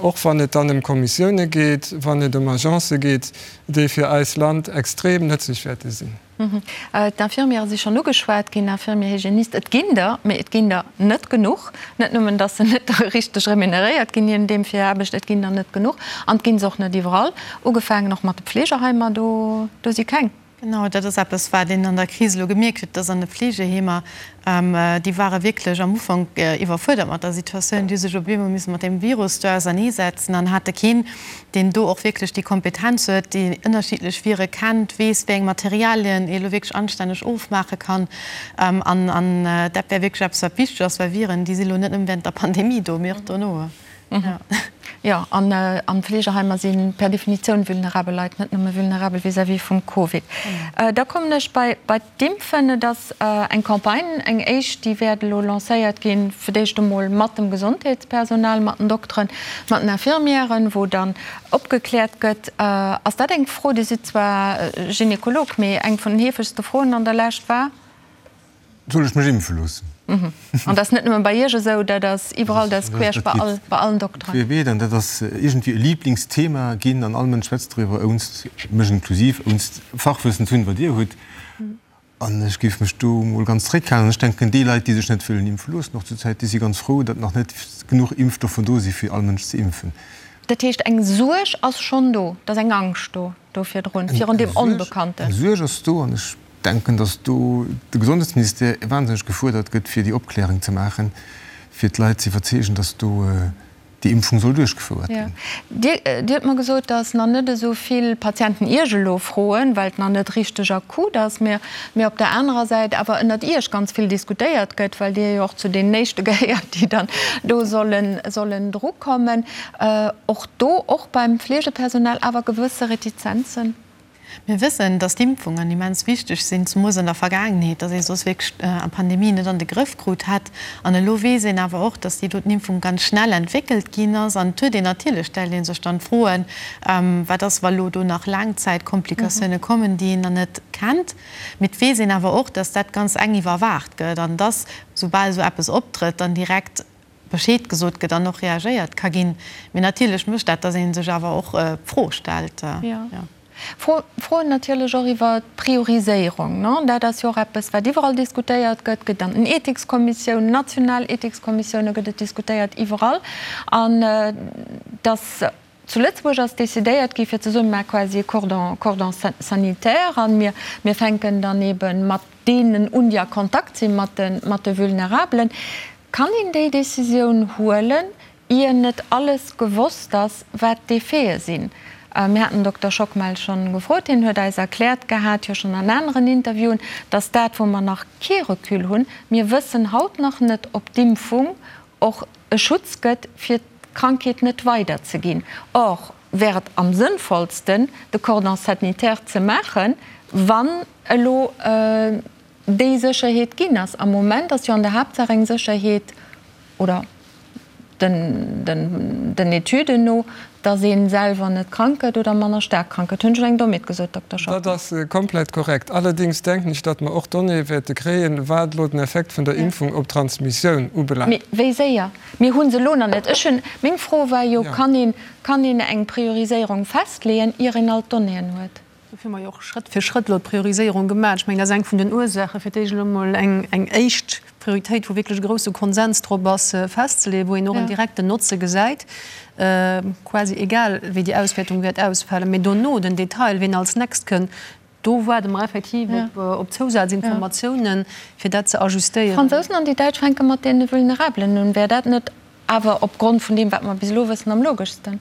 och wann et dann ëm Kommissioune geet, wann et ëm Agencë geet, déi fir eist Land extrem nëtzlech wäerte sinn. D'Infirmièrë si schonn ugeschwat ginn, Infirmier, Hygiéniste, et ginn der, mee et ginn der net genuch. Net nëmmen, datt se net richteg remuneréiert ginn, je nodeem fir hir Aarbecht, et ginn der net genuch an et gi se och net iwwerall. Ugefaangen och mat de Pflegerheimer, do do si keng. Genau, dat ass eppes, wat een an der Kris elo gemierkt huet, dass an de Fleegeheemer, déi ware wierklech am Ufank iwwerfuerdert mat der Situatioun, déi hu sech op eemol misse mat deem Virus do auserneesetzen an hate keen, deen do och wierklech déi Kompetenz huet, déi ënnerschiddlech Vire kennt, weess, wéi eng Materialien ee elo wierklech anstänneg ofmaache kann. An dat wär wierklech eppes, wat wichteg ass, well Viren, déi si elo net nëmme während der Pandemie do, mee och dono. Jo, an Fleegeheimer si per Definitioun vulnerabel Leit, net nëmme vulnerabel vis-à-vis vum Covid. Da kommen ech bei d'Impfen. Et ass eng Campagne, eng éischt, déi wäert elo lancéiert ginn, fir d'éischt emol mat dem Gesondheetspersonal, mat den Dokteren, mat den Infirmièren, wou dann opgekläert gëtt. Ass dat eng Fro, Dir sidd zwar Gynekolog, mee eng vun den heefegste Froen an der Lescht war? Soll ech mech impfe loossen? An dat ass net nëmme bei Iech esou, dat ass iwwerall, dat ass queesch bei all, bei allen Dokteren. Querbeet, an dat ass iergendwéi e Liblingsthema ginn an all Mënsch schwätzt driwwer, ounst, mech inklusiv, ounst Fachwëssen ze hunn, wat Dir hutt. An ech géif mech do emol ganz zréckhalen. An ech denken, déi Leit, déi sech net wëllen impfe loossen, och zurzäit, déi si ganz frou, datt nach net genuch Impfstoffer do si fir all Mënsch ze impfen. Dat heescht, eng Suerg ass schonn do, et ass eng Angscht do, do virdrun, virun deem Onbekannten. Eng Suerg ass do an ech denken, datt do de Gesondheetsministère wahnsinneg gefuerdert gëtt, fir déi Opklärung ze maachen, fir d'Leit ze iwwerzeegen, datt do déi Impfung soll duerchgefouert ginn. Dir hutt mer gesot, datt nach net esou vill Patienten Iech elo froen, well et nach net richteg akut ass, mä op der anerer Säit awer ënnert Iech ganz vill diskutéiert gëtt, well Dir jo och zu deenen Éischte gehéiert, déi dann do sollen drukommen. Och do, och beim Fleegepersonal awer gewësse Retizenzen. Mir wëssen, dass d'Impfungen immens wichteg sinn, zemoos an der Vergaangenheet, dass ee soss wierklech d'Pandemie net an de Grëff krut hätt. An elo weess een awer och, dass déi doten Impfung ganz schnell entwéckelt ginn ass. An et huet een natierlech, stellt ee sech dann d'Froen, Wat ass, wa lo do nach Laangzäitkomplikatioune kommen, déi een nach net kennt? Mee et weess een awer och, dass dat ganz enk iwwerwaacht gëtt an dass, soubal esou eppes optrëtt, dann direkt Bescheed gesot gëtt an och reagéiert ka ginn. Mee natierlech mécht dat, datt ee sech awer och d'Fro stellt. Jo. Froen natierlech och iwwer d'Prioriséierung. Dat ass jo och eppes, wat iwwerall diskutéiert gëtt. Gëtt an den Ethikskommissiounen, national Ethikskommissioune gëtt et diskutéiert, iwwerall. An datt Zu Lëtzebuerg ass decidéiert gi fir ze soen, mir maache quasi e Cordon, Cordon sanitaire an mir, mir fänken dann ebe mat deenen un, déi a Kontakt si mat de, mat de Vulnerabelen. Kann een déi Décisioun huelen, ier net alles gewosst ass, wat d'Effete sinn? Mir haten den Dokter Schockmel schonn gefrot, hien huet eis erkläert gehat, jo schonn an aneren Interviewen, dass dat, wou mer nach kee Recul hunn, mir wëssen haut nach net, ob d'Impfung och e Schutz gëtt, fir d'Krankheet net weider ze ginn. Or wär et am sënnvollsten, de Cordon sanitaire ze maachen, wann elo déi Sécherheet ginn ass. Am Moment ass jo an der Haaptsaach eng Sécherheet, oder den Etüden no, dass ee selwer net krank gëtt oder manner staark krank gëtt. Hunn ech eng Dommheet gesot, Dokter Schockmel? Dat ass komplett korrekt. Allerdéngs denken ech, datt mer och Donnéeë wäerte kréien, wat elo den Effekt vun der Impfung op d'Transmissioun ubelaangt. Mee wéi séier? Mir hu se elo nach net. Ech hunn, meng Fro war jo, Kann een, kann een eng Prioriséierung festleeën, ier een all d'Donnéeën huet? Dofir hu mer jo och Schrëtt fir Schrëtt elo d'Prioriséierung gemaach. Ech mengen, dat ass eng vun den Ursaachen, fir d'éischt elo emol eng, eng éischt Prioritéit, wou wierklech e grousse Konsens drop ass, festzeleeën, wou een och en direkten Notze gesäit, quasi egal wéi déi Auswäertung wäert ausfalen. Mee dono den Detail, wien als next kënn, do waarde mer effektiv op Zousazinformatiounen, fir dat ze ajustéieren. D'Fransousen an déi Däitsch fänke mat deene Vulnerabelen un. Wär dat net awer opgrond vun deem, wat mer bis elo wëssen, am logeschsten?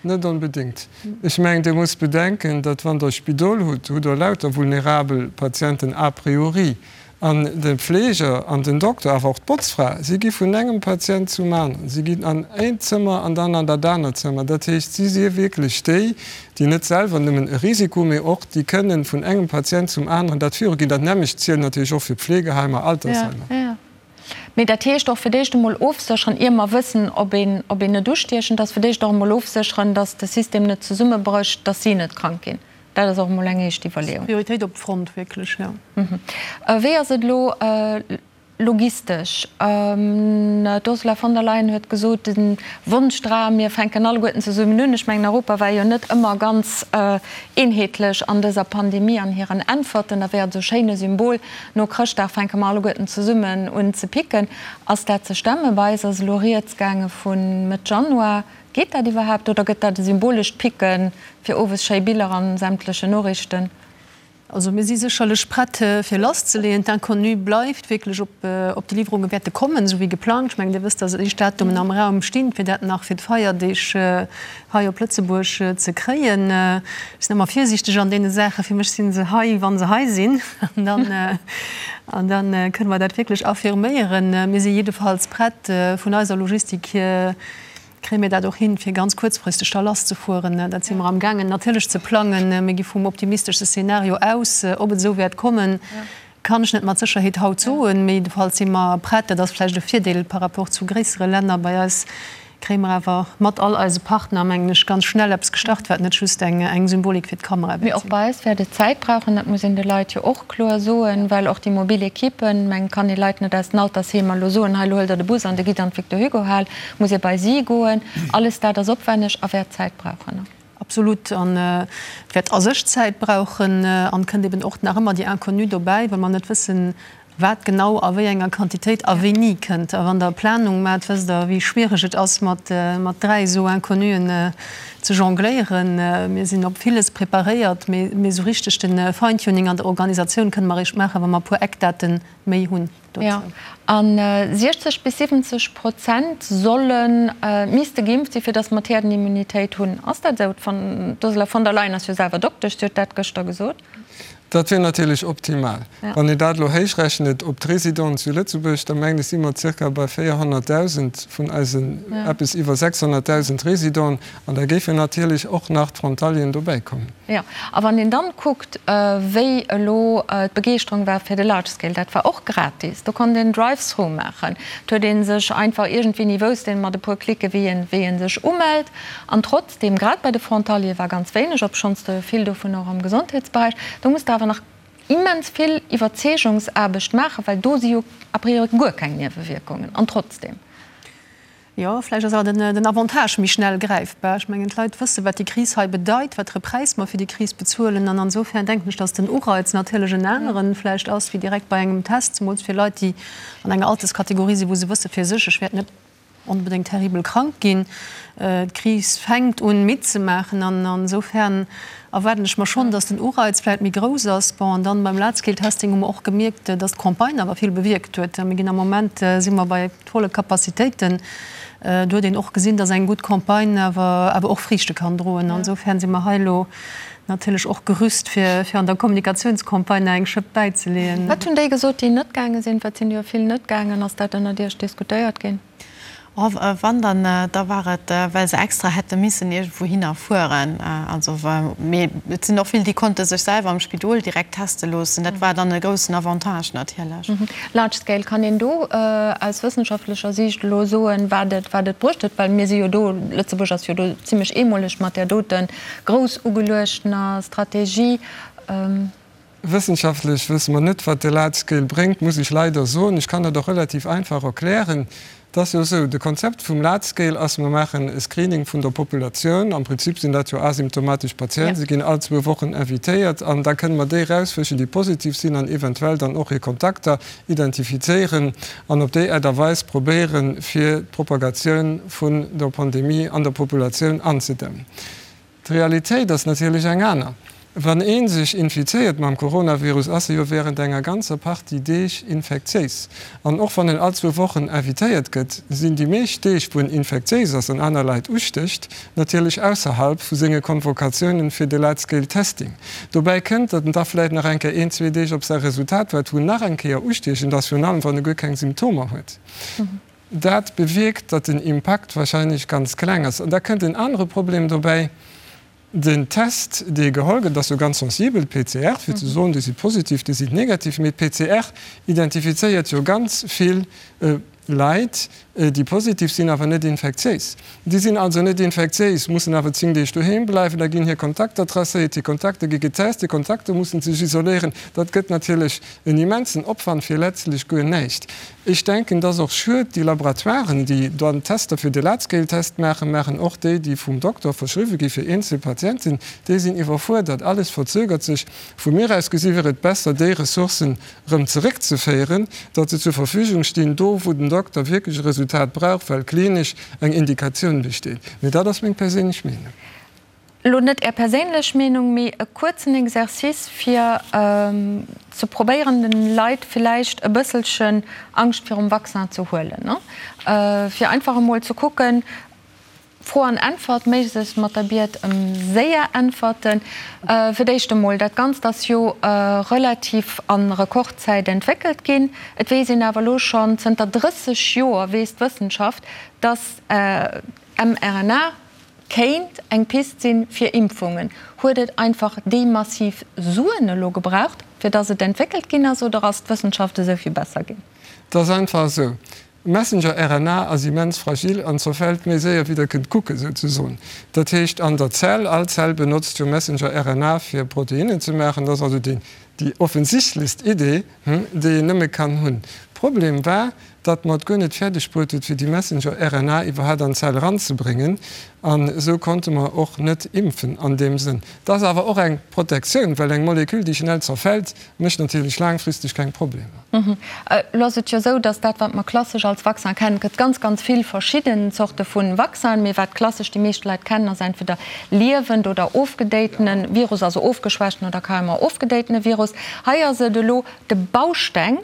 Net onbedéngt. Ech mengen, Dir musst bedenken, datt wann Der e Spidol hutt, hutt Der lauter vulnerabel Patienten a priori. An de Pfleger an den Dokter, awer och d'Botzfra, si gi vun engem Patient zum aneren. Si ginn an eent Zëmmer an dann an dat anert Zëmmer. Dat heescht, si si wierklech déi, déi net selwer nëmmen e Risiko, mee och déi kënnen vun engem Patient zum aneren dat viruginn. Dat nämmlecht zielt natierlech och fir Pflegeheimer, Altersheimer. Mee dat heescht och fir d'éischt emol ofsécheren, ier mer wëssen, ob een, ob een net ustiechend ass, fir d'éischt och emol ofsécheren, datt de System net zesummebrécht, datt si net krank ginn. Dat ass och emol eng éischt Iwwerleeung. Prioritéit op d'Front, wierklech, jo. Wéi ass et elo logistesch? D'Ursula von der Leyen huet gesot, de Wonschdram, mir fänken alleguerten zesummen un. Ech mengen, Europa war jo net ëmmer ganz eenheetlech an dëser Pandemie an hiren Äntwerten. Da wär et esou schéin e Symbol, no Chrëschtdag fänke mer alleguerten zesummen un ze picken. Ass dat ze stemmen? Bei eis ass elo rieds gaange vu Mëtt Januar. Geet dat iwwerhaapt oder gëtt dat e symbolescht Picken fir owes schéi Biller an sämtlechen Noriichten? Also mir si sécherlech prett fir lasszeleeën. D'Inconnue bleift wierklech, ob ob déi Liwwerunge wäerte kommen, esou wéi geplangt. Ech mengen, Dir wësst, datt éischt Datumen am Raum stinn, fir dat nach fir d'Feierdeeg hei op Lëtzebuerg ze kréien. Ech sinn ëmmer virsiichteg an deene Saachen. Fir mech si se hei, wa se hei sinn. An dann, an da kënne mer dat wierklech affirméieren. Mir si jiddefalls prett vun eiser Logistik hier. Kréie mir dat och hin, fir ganz kuerzfristeg da lasszefueren? Dat si mer amgaangen natierlech ze plangen. Mir gi vum optimisteschste Szenario aus. Ob et esou wäert kommen, kann ech net mat Sécherheet haut soen. Mee jiddefalls si mer prett. Dat ass vläicht e Virdeel par rapport zu gréissere Länner. Bei eis kréie mer awer mat all eise Partner, mengen ech, ganz schnell eppes gestart, wat net just eng Symbolik fir d'Kamera wäert sinn. Mee och bei eis wäert et Zäit brauchen. Dat muss een de Leit jo och kloer soen, well och déi mobil Ekippen, mengen, kann ee Leit net aus den Altersheemer elo soen, hei elo huelt Der de Bus an Der gitt an d'Victor Hugo Hal, muss ee bei si goen. Alles dat ass opwenneg a wäert Zäit brauchen. Absolut. An et wäert a sech Zäit brauchen. An et kënnt eben och nach ëmmer déi Inconnue dobäi, well mer net wëssen, wat genau a wéi enger Quantitéit a wéini kënnt. A wann Der Planung maacht, wësst Der, wéi schwiereg et ass, mat 3 esou Inconnuen ze jongléieren. Mir sinn op villes preparéiert, mee esou richteg de Feintuning an der Organisatioun kënne mer eréischt maachen, wa mer e puer Eckdate méi hunn dozou. Jo, a 60 bis 70 Prozent solle misste geimpft sinn, fir datt mer d'Häerdenimmunitéit hunn. Ass dat esou? D'Ursula von der Leyen ass jo selwer Doktesch, si huet dat gëschter gesot. Dat wier natierlech optimal. Wann een dat elo héichrechnet op d'Residenten zu Lëtzebuerg, da mengen ech si mer zirka bei 400.000 vun eisen eppes iwwer 600.000 Residenten. An da géifen natierlech och nach d'Frontalieren dobäi kommen. Jo, a wann een dann kuckt, wéi elo d'Begeeschterung war fir de Large Scale, dat war och gratis, do konnt een Drive-through maachen, et huet ee sech einfach iergendwéini wousst een mat e puer Klicke wéi een wéi ee sech umellt. An trotzdeem, grad bei de Frontaliere war ganz wéineg, obschonns der jo vill dovun och am Gesondheetsberäich, do muss der awer nach immens vill Iwwerzeegungsaarbecht maachen, well do si jo a priori guer keng Niewewierkungen. An trotzdeem. Jo, vläicht ass awer den Avantage méi schnell gräifbar. Ech mengen, d'Leit wëssen, wat déi Kris hei bedeit, wat fir e Präis mer fir déi Kris bezuelen. An insofern denken ech, datt den Ureiz natierlech en aneren vläicht ass wéi direkt bei engem Test, zemools fir Leit, déi an enger Alterskategorie sinn, wou se wësse fir sech, ech wäert net onbedéngt terribel krank ginn. D'Kris fänkt un midd ze maachen an insofern erwaarden ech mer schonn, datt den Ureiz vläicht méi grouss ass. Bon, an dann beim Large-Scale-Testing hu mer och gemierkt, datt d'Campagne awer vill bewierkt huet. Mir ginn am Moment, si mer bei volle Capacitéiten. Do huet een och gesinn, datt eng gutt Campagne awer awer och Friichte kann droen. An insofern si mer hei elo natierlech och gerüst, fir fir an der Kommunikatiounscampagne nach eng Schëpp bäizeleeën. Wat hunn déi gesot, déi net gaange sinn? Well et sinn jo vill net gaangen. Ass dat ënnert Iech diskutéiert ginn? Oh, wann dann, da war et, well se extra hätte missen iergendwouhinner fueren. Also, mee et sinn och vill, déi konnte sech selwer am Spidol direkt teste loossen. Dat war dann e groussen Avantage natierlech. Large scale, kann een do aus wëssenschaftlecher Siicht elo soen, wat et, wat et bruecht huet? Well mir si jo do, Lëtzebuerg ass jo do zimlech eemoleg mat där dote grouss ugeluechtener Strategie. Wëssenschaftlech wësse mer net, wat de Large Scale bréngt, muss ech leider soen. Ech kann dat och relativ einfach erklären. Et ass jo esou, de Konzept vum Large Scale ass, mer maachen e Screening vun der Populatioun. Am Prinzip sinn dat jo asymptomatesch Patienten, se ginn all zwou Wochen invitéiert an da kënne mer déi erausfëschen, déi positiv sinn an eventuell dann och hir Kontakter identifizéieren an op déi Aart a Weis probéieren, fir d'Propagatioun vun der Pandemie an der Populatioun anzedämmen. D'Realitéit ass natierlech eng aner. Wann ee sech infizéiert mam Coronavirus, ass e jo wärend enger ganzer Partie Deeg infektiéis. An och wann en all zwou Wochen invitéiert gëtt, sinn déi meescht Deeg, wou en infektiéis ass an aner Leit ustécht, natierlech ausserhalb vu senge Convocatiounen fir de Large-Scale Testing. Dobäi kënnt, datt en da vläicht nach eng Kéier een, zwee Deeg op säi Resultat waart, wou en nach eng Kéier ustiechend ass, virun allem wann e guer keng Symptomer huet. Dat bewierkt, datt den Impakt wahrscheinlech ganz kleng ass. An da kënnt en anere Problem dobäi, Den Test, dee geholl gëtt, ass jo ganz sensibel, d'PCR, fir ze soen, déi si positiv, déi sinn negativ. Mee d'PCR identifizéiert jo ganz vill Leit, déi positiv sinn, awer net infektiéis. Déi sinn also net infektiéis, mussen awer 10 Deeg doheem bleiwen. Da ginn hir Kontakter tracéiert, hir Kontakter gi getest, hir Kontakter mussen sech isoléieren. Dat gëtt natierlech en immensen Opwand fir letztlech guer näischt. Ech denken, et ass och schued, déi Laboratoiren, déi dann d'Tester fir de Large-Scale-Test maachen, maachen och déi, déi vum Dokter verschriwwe gi fir eenzel Patienten, déi sinn iwwerfuerdert. Alles verzögert sech. Vu mir aus gesi wier et besser, déi Ressourcen erëm zeréckzeféieren, datt se zur Verfügung stinn, do wou den Dokter wierklech e Resultat brauch, well klinesch eng Indikatioun besteet. Mee dat ass meng perséinlech Meenung. Elo net Är perséinlech Meenung, mee e kuerzen Exercice fir ze probéieren den Leit villäicht e bësselchen Angscht virum Vaccin ze huelen, fir einfach emol ze kucken, Fro an Äntwert, méiglechst mat der Biet ëm séier Äntwerten. Fir d'éischt emol, dat Ganzt ass jo relativ a Rekordzäit entwéckelt ginn. Et weess een awer elo schonn zënter 30 Joer, weess d'Wëssenschaft, dass. mRNA kéint eng Pist sinn fir Impfungen. Huet et einfach déi massiv Suen elo gebraucht, fir datt et entwéckelt ginn ass, oder ass d'Wëssenschaft esou vill besser ginn? Et ass einfach esou, Messenger-RNA ass immens fragil an zerfält méi séier wéi der kënnt kucken, souzesoen. Dat heescht an der Zell, all Zell benotzt jo Messenger-RNA fir Proteinnen ze maachen, dat ass also déi offensichtlechst Idee, déi een nëmme kann hunn. Problem war, datt mer et guer net fäerdeg bruet huet fir déi Messenger-RNA iwwerhaapt an d'Zell eranzebréngen an esou konnte mer och net impfen an deem Sënn. Et ass awer och eng Protektioun, well eng Molekül déi schnell zerfält, mécht natierlech laangfristeg keng Problemer. Elo ass et jo esou, datt dat wat mer klassesch als Vaccin kennen, et gëtt ganz ganz vill verschidden Zorte vu Vaccinen, mee wat klassesch déi meescht Leit kennen ass entweder liewend oder ofgedéitene Virus, also ofgeschwächten oder carrément ofgedéitene Virus. Hei ass et elo de Bausteng.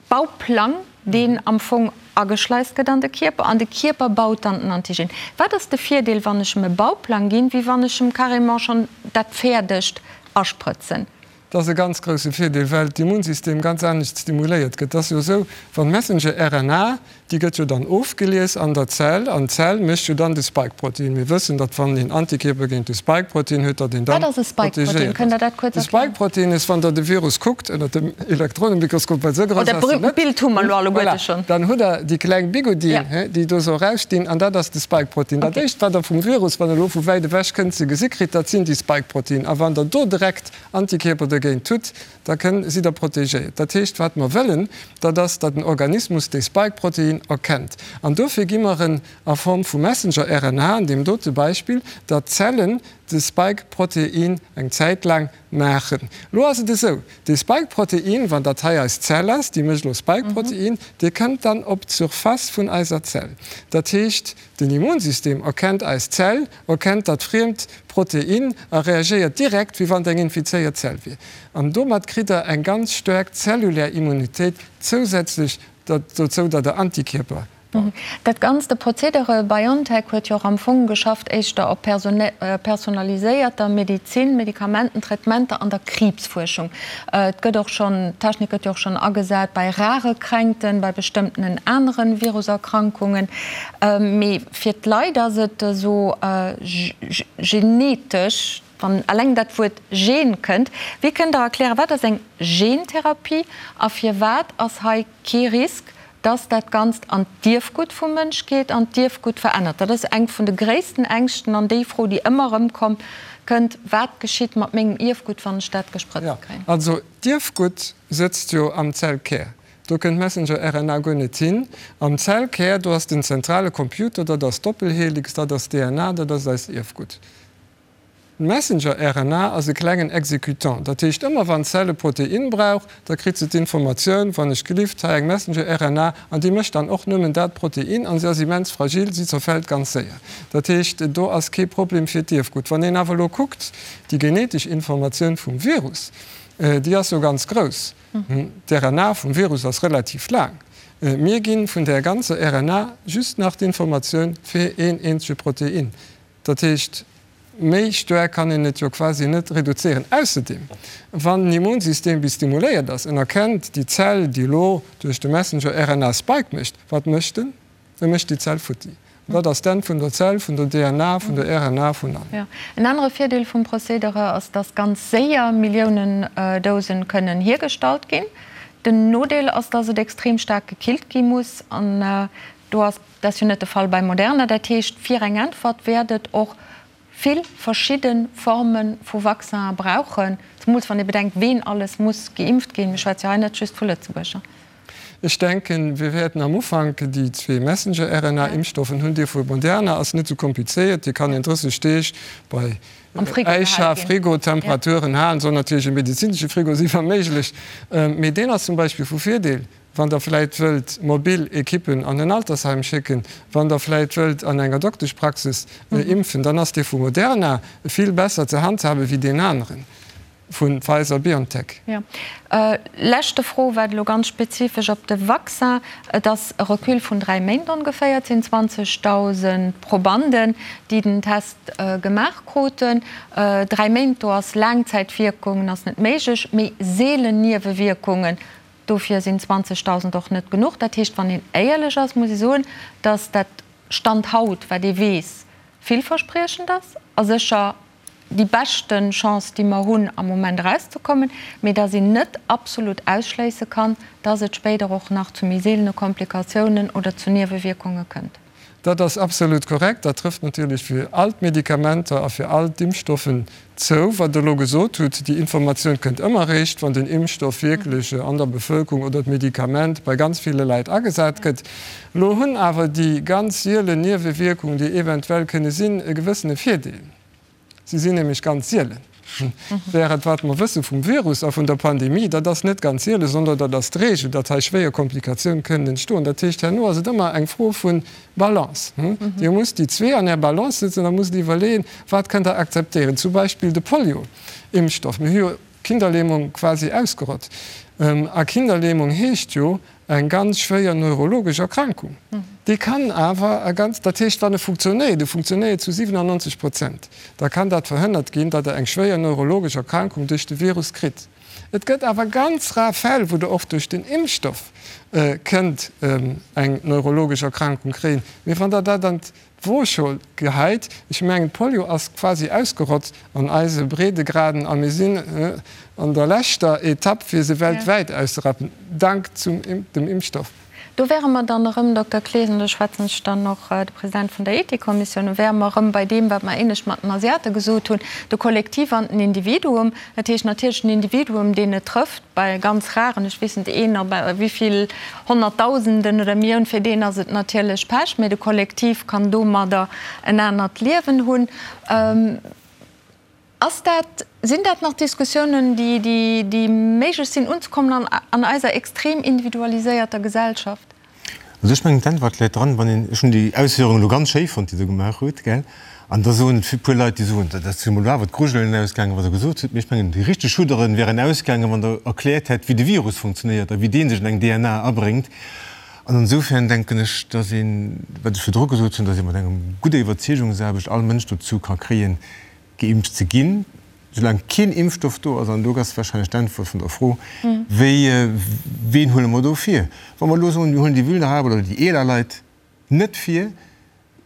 Bauplang, deen am Fong ageschleist gëtt an de Kierper, an de Kierper baut dann den Antigen. Wat ass de Virdeel, wann ech em e Bauplang ginn, wéi wann ech em carrément schonn dat Fäerdegt asprëtzen? Dat ass e ganz grousse Virdeel, well d'Immunsystem ganz anescht stimuléiert gëtt. Et ass jo esou, wann d'Messenger-RNA Déi gëtt jo dann ofgelies an der Zell, an d'Zell mécht jo dann de Spike-Protein. Mir wëssen, datt wann een Antikierper géint de Spike-Protein huet, datt een dann Wat ass e Spike-Protein? Kënnt Der dat kuerz erklären? De Spike-Protein ass, wann Der de Virus kuckt ënner dem Elektronenmikroskop, well esou grouss ass en net. Dat Bild hu mer elo alleguerte schonn. Voilà, dann hutt Der déi kleng Bigoudien, déi do esou erausstinn, an dat ass de Spike-Protein. Dat éischt, wat Der vum Virus, wann e elo vu wäit ewech kënnt, ze gesi kritt, dat sinn déi Spike-Protein. A wann Der do direkt Antikierper dogéint hutt, Da kënn sidd Der protegéiert. Dat heescht, wat mer wëllen, dat ass, datt den Organismus dee Spike-Protein erkennt. An dofir gi mer en a Form vu Messenger-RNA, an deem dote Beispill, datt d'Zellen de Spike-Protein eng Zäit laang maachen. Elo ass et esou, dee Spike-Protein, wann dat hei eis Zell ass, déi mécht elo Spike-Protein, dee kënnt dann op d'Surface vun eiser Zell. Dat heescht, Den Immunsystem erkennt eis Zell, erkennt dat friemt Protein a reagéiert direkt, wéi wann et eng infizéiert Zell wier. An domat kritt der eng ganz staark zellulär Immunitéit zousätzlech dozou, datt der Antikierper baut. Dat Ganzt, de Prozedere, BioNTech huet jo och am Fong geschafft éischter op personaliséierter Medizin, Medikamenten, Traitementer an der Kriibsfuerschung. Et gëtt och schonn, d'Technik gëtt jo och schonn agesat bei rare Kränkten, bei bestëmmtenen anere Viruserkrankungen. Mee fir d'Leit ass et esou genetesch, wann eleng dat Wuert Gen kënnt. Wéi kënnt Der erklären, wat ass eng Gentherapie a firwat ass hei kee Risk, dass dat Ganzt an d'Ierfgutt vum Mënsch geet an d'Ierfgutt verännert? Dat ass eng vun de gréissten Ängschten an déi Fro, déi ëmmer erëm kommt, kënnt, Wat geschitt mat mengem Ierfgutt, wann ech dat gesprëtzt kréien? Also d'Ierfgutt sëtzt jo am Zellkär. Do kënnt d'Messenger-RNA guer net hin. Am Zellkär, do ass den zentrale Computer, dat ass d'Doppelhelix, dat ass d'DNA, dat ass eist Ierfgutt. D'Messenger-RNA ass e klengen Exécutant. Dat heescht, ëmmer wann d'Zell e Protein brauch, da kritt se d'Informatioun, wann ech gelift, hei eng Messenger-RNA, an déi mécht dann och nëmmen dat Protein, an se ass immens fragil, si zerfält ganz séier. Dat heescht, do ass kee Problem fir d'Ierfgutt. Wann een awer elo kuckt, déi genetesch Informatioun vum Virus, déi ass jo ganz grouss. D'RNA vum Virus ass relativ laang. Mir gi vun där ganzer RNA just nach d'Informatioun fir een eenzege Protein. Dat heescht, méi staark kann een et jo quasi net reduzéieren. Ausserdeem, wann den Immunsystem bis stimuléiert ass, en erkennt déi Zell, déi elo duerch de Messenger-RNA Spike mécht, wat mécht en? E mécht déi Zell futti. An dat ass d'Enn vun der Zell, vun der DNA, vun der RNA, vun allem. Jo. En anere Virdeel vum Procédere ass, dass ganz séier Milliounen Dosen kënnen hiergestallt ginn. Den Nodeel ass, dass et extrem staark gekillt gi muss. An do ass, dat ass jo net de Fall bei Moderna. Dat heescht, fir eng Äntwert wäert et och vill verschidde Forme vu Vaccinen brauchen, zemools wann ee bedenkt, ween alles muss geimpft ginn. Mir schwätze jo hei net just vu Lëtzebuerger. Ech denken, wir wäerten am Ufank déi zwee Messenger-RNA-Impfstoffen hunn. Dee vu Moderna ass net esou komplizéiert, dee kann een 30 Deeg bei Äischa, Frigo-Temperaturen halen. Soll natierlech e medezinesche Frigo sinn, wa méiglech. Mee deen ass zum Beispill vu Virdeel, wann Der vläicht wëllt mobil Ekippen an en Altersheim schécken, wann Der vläicht wëllt an enger Dokteschpraxis impfen, dann ass dee vu Moderna vill besser ze handhaben wéi deen aneren. Vu Pfizer-BioNTech. Jo. Leschte Fro, wat elo ganz spezifesch op de Vaccin. Et ass e Recul vun 3 Méint ongeféier. Et sinn 20.000 Probanden, déi den Test gemaach kruten. 3 Méint, do ass Laangzäitwierkungen ass net méiglech, mee seelen Niewewierkungen, dofir sinn 20.000 och net genuch. Dat heescht, wann een éierlech ass, muss ee soen, datt dat. Stand haut, wat ee weess, villverspriechend ass a sécher déi beschte Chance, déi mer hunn am Moment erauszekommen, mee dass een net absolut ausschléisse kann, dass et spéider och nach zu méi seelene Komplikatiounen oder zu Niewewierkunge kënnt. Dat ass absolut korrekt. Dat trëfft natierlech fir all d'Medikamenter a fir all d'Impfstoffen zou. Wat Der elo gesot hutt, déi Informatioun kënnt ëmmer eréischt, wann den Impfstoff wierklech an der Bevölkerung oder d'Medikament bei ganz ville Leit agesat gëtt. Elo hunn awer déi ganz sielen Niewewierkungen, déi eventuell kënne sinn, e gewëssene Virdeel. Si sinn nämlech ganz sielen. Während wat mer wësse vum Virus a vun der Pandemie, dat ass net ganz sielen, sondern dat ass d'Regel, datt hei schwéier Komplikatioun kënnen entstoen. Dat heescht, herno ass et ëmmer eng Fro vu Balance. Dir musst déi zwee an Är Balance setzen a musst iwwerleeën, wat kënnt Der akzeptéieren. Zum Beispill de Polio-Impfstoff. Mir hu jo d'Kinderlähmung quasi ausgerott. A Kinderlähmung heescht jo, Eng ganz schwéier neurologesch Erkrankung. Déi kann awer a ganz, dat heescht wann e funktionéiert, e funktionéiert zu 97 Prozent, da kann dat verhënnert ginn, datt Der eng schwéier neurologesch Erkrankung duerch de Virus kritt. Et gëtt awer ganz rar Fäll, wou Der och duerch den Impfstoff kënnt eng neurologesch Erkrankung kréien. Mee wann Der dat an D'Wooschool geheit. Ech mengen, d'Polio ass quasi ausgerott an eise Breedegraden a mir sinn an der leschter Etapp, fir se weltwäit auszerappen, dank zum dem Impfstoff. Do wäre mer dann erëm, Dokter Clesen, do schwätzen ech dann och de President vun der Ethikkommissioun un, wäre mer erëm bei deem, wat mer éinescht mat den Asiate gesot hunn, de Kollektiv an den Individuum. Dat heescht natierlech den Individuum, deen et trëfft, bei ganz raren, ech weess net, een op wéi vill Honnertdausenden oder Millioun, fir deen ass et natierlech Pech, mee de Kollektiv kann domadder en anert Liewen hunn. Ass dat, sinn dat nach Diskussiounen, déi, déi méiglech sinn unzekommen an, an eiser extrem individualiséierter Gesellschaft? Also ech mengen d'Äntwert läit dran, wann een, ech hunn déi Ausféierung elo ganz schéi fonnt, déi Der gemaach hutt, gell, an da soen e puer Leit, déi soen, dat ass jo mol awer d'Grujelen ausgaangen, wat Der gesot hutt, mee ech mengen déi richteg Schudderen wären ausgaangen, wann Der erkläert hätt, wéi de Virus funktionéiert a wéi dee sech an eng DNA abréngt. An insofern denken ech, dass een, wat ech virdru gesot hunn, dass ee mat engem gudder Iwwerzeegungsaarbecht all Mënsch dozou ka kréien, geimpft ze ginn, soulaang keen Impfstoff do ass, an do ass wahrscheinlech d'Äntwert vun der Fro, wéi, ween huele mer do vir? Wa mer elo soen, mir huelen déi vulnerabel oder déi eeler Leit net vir,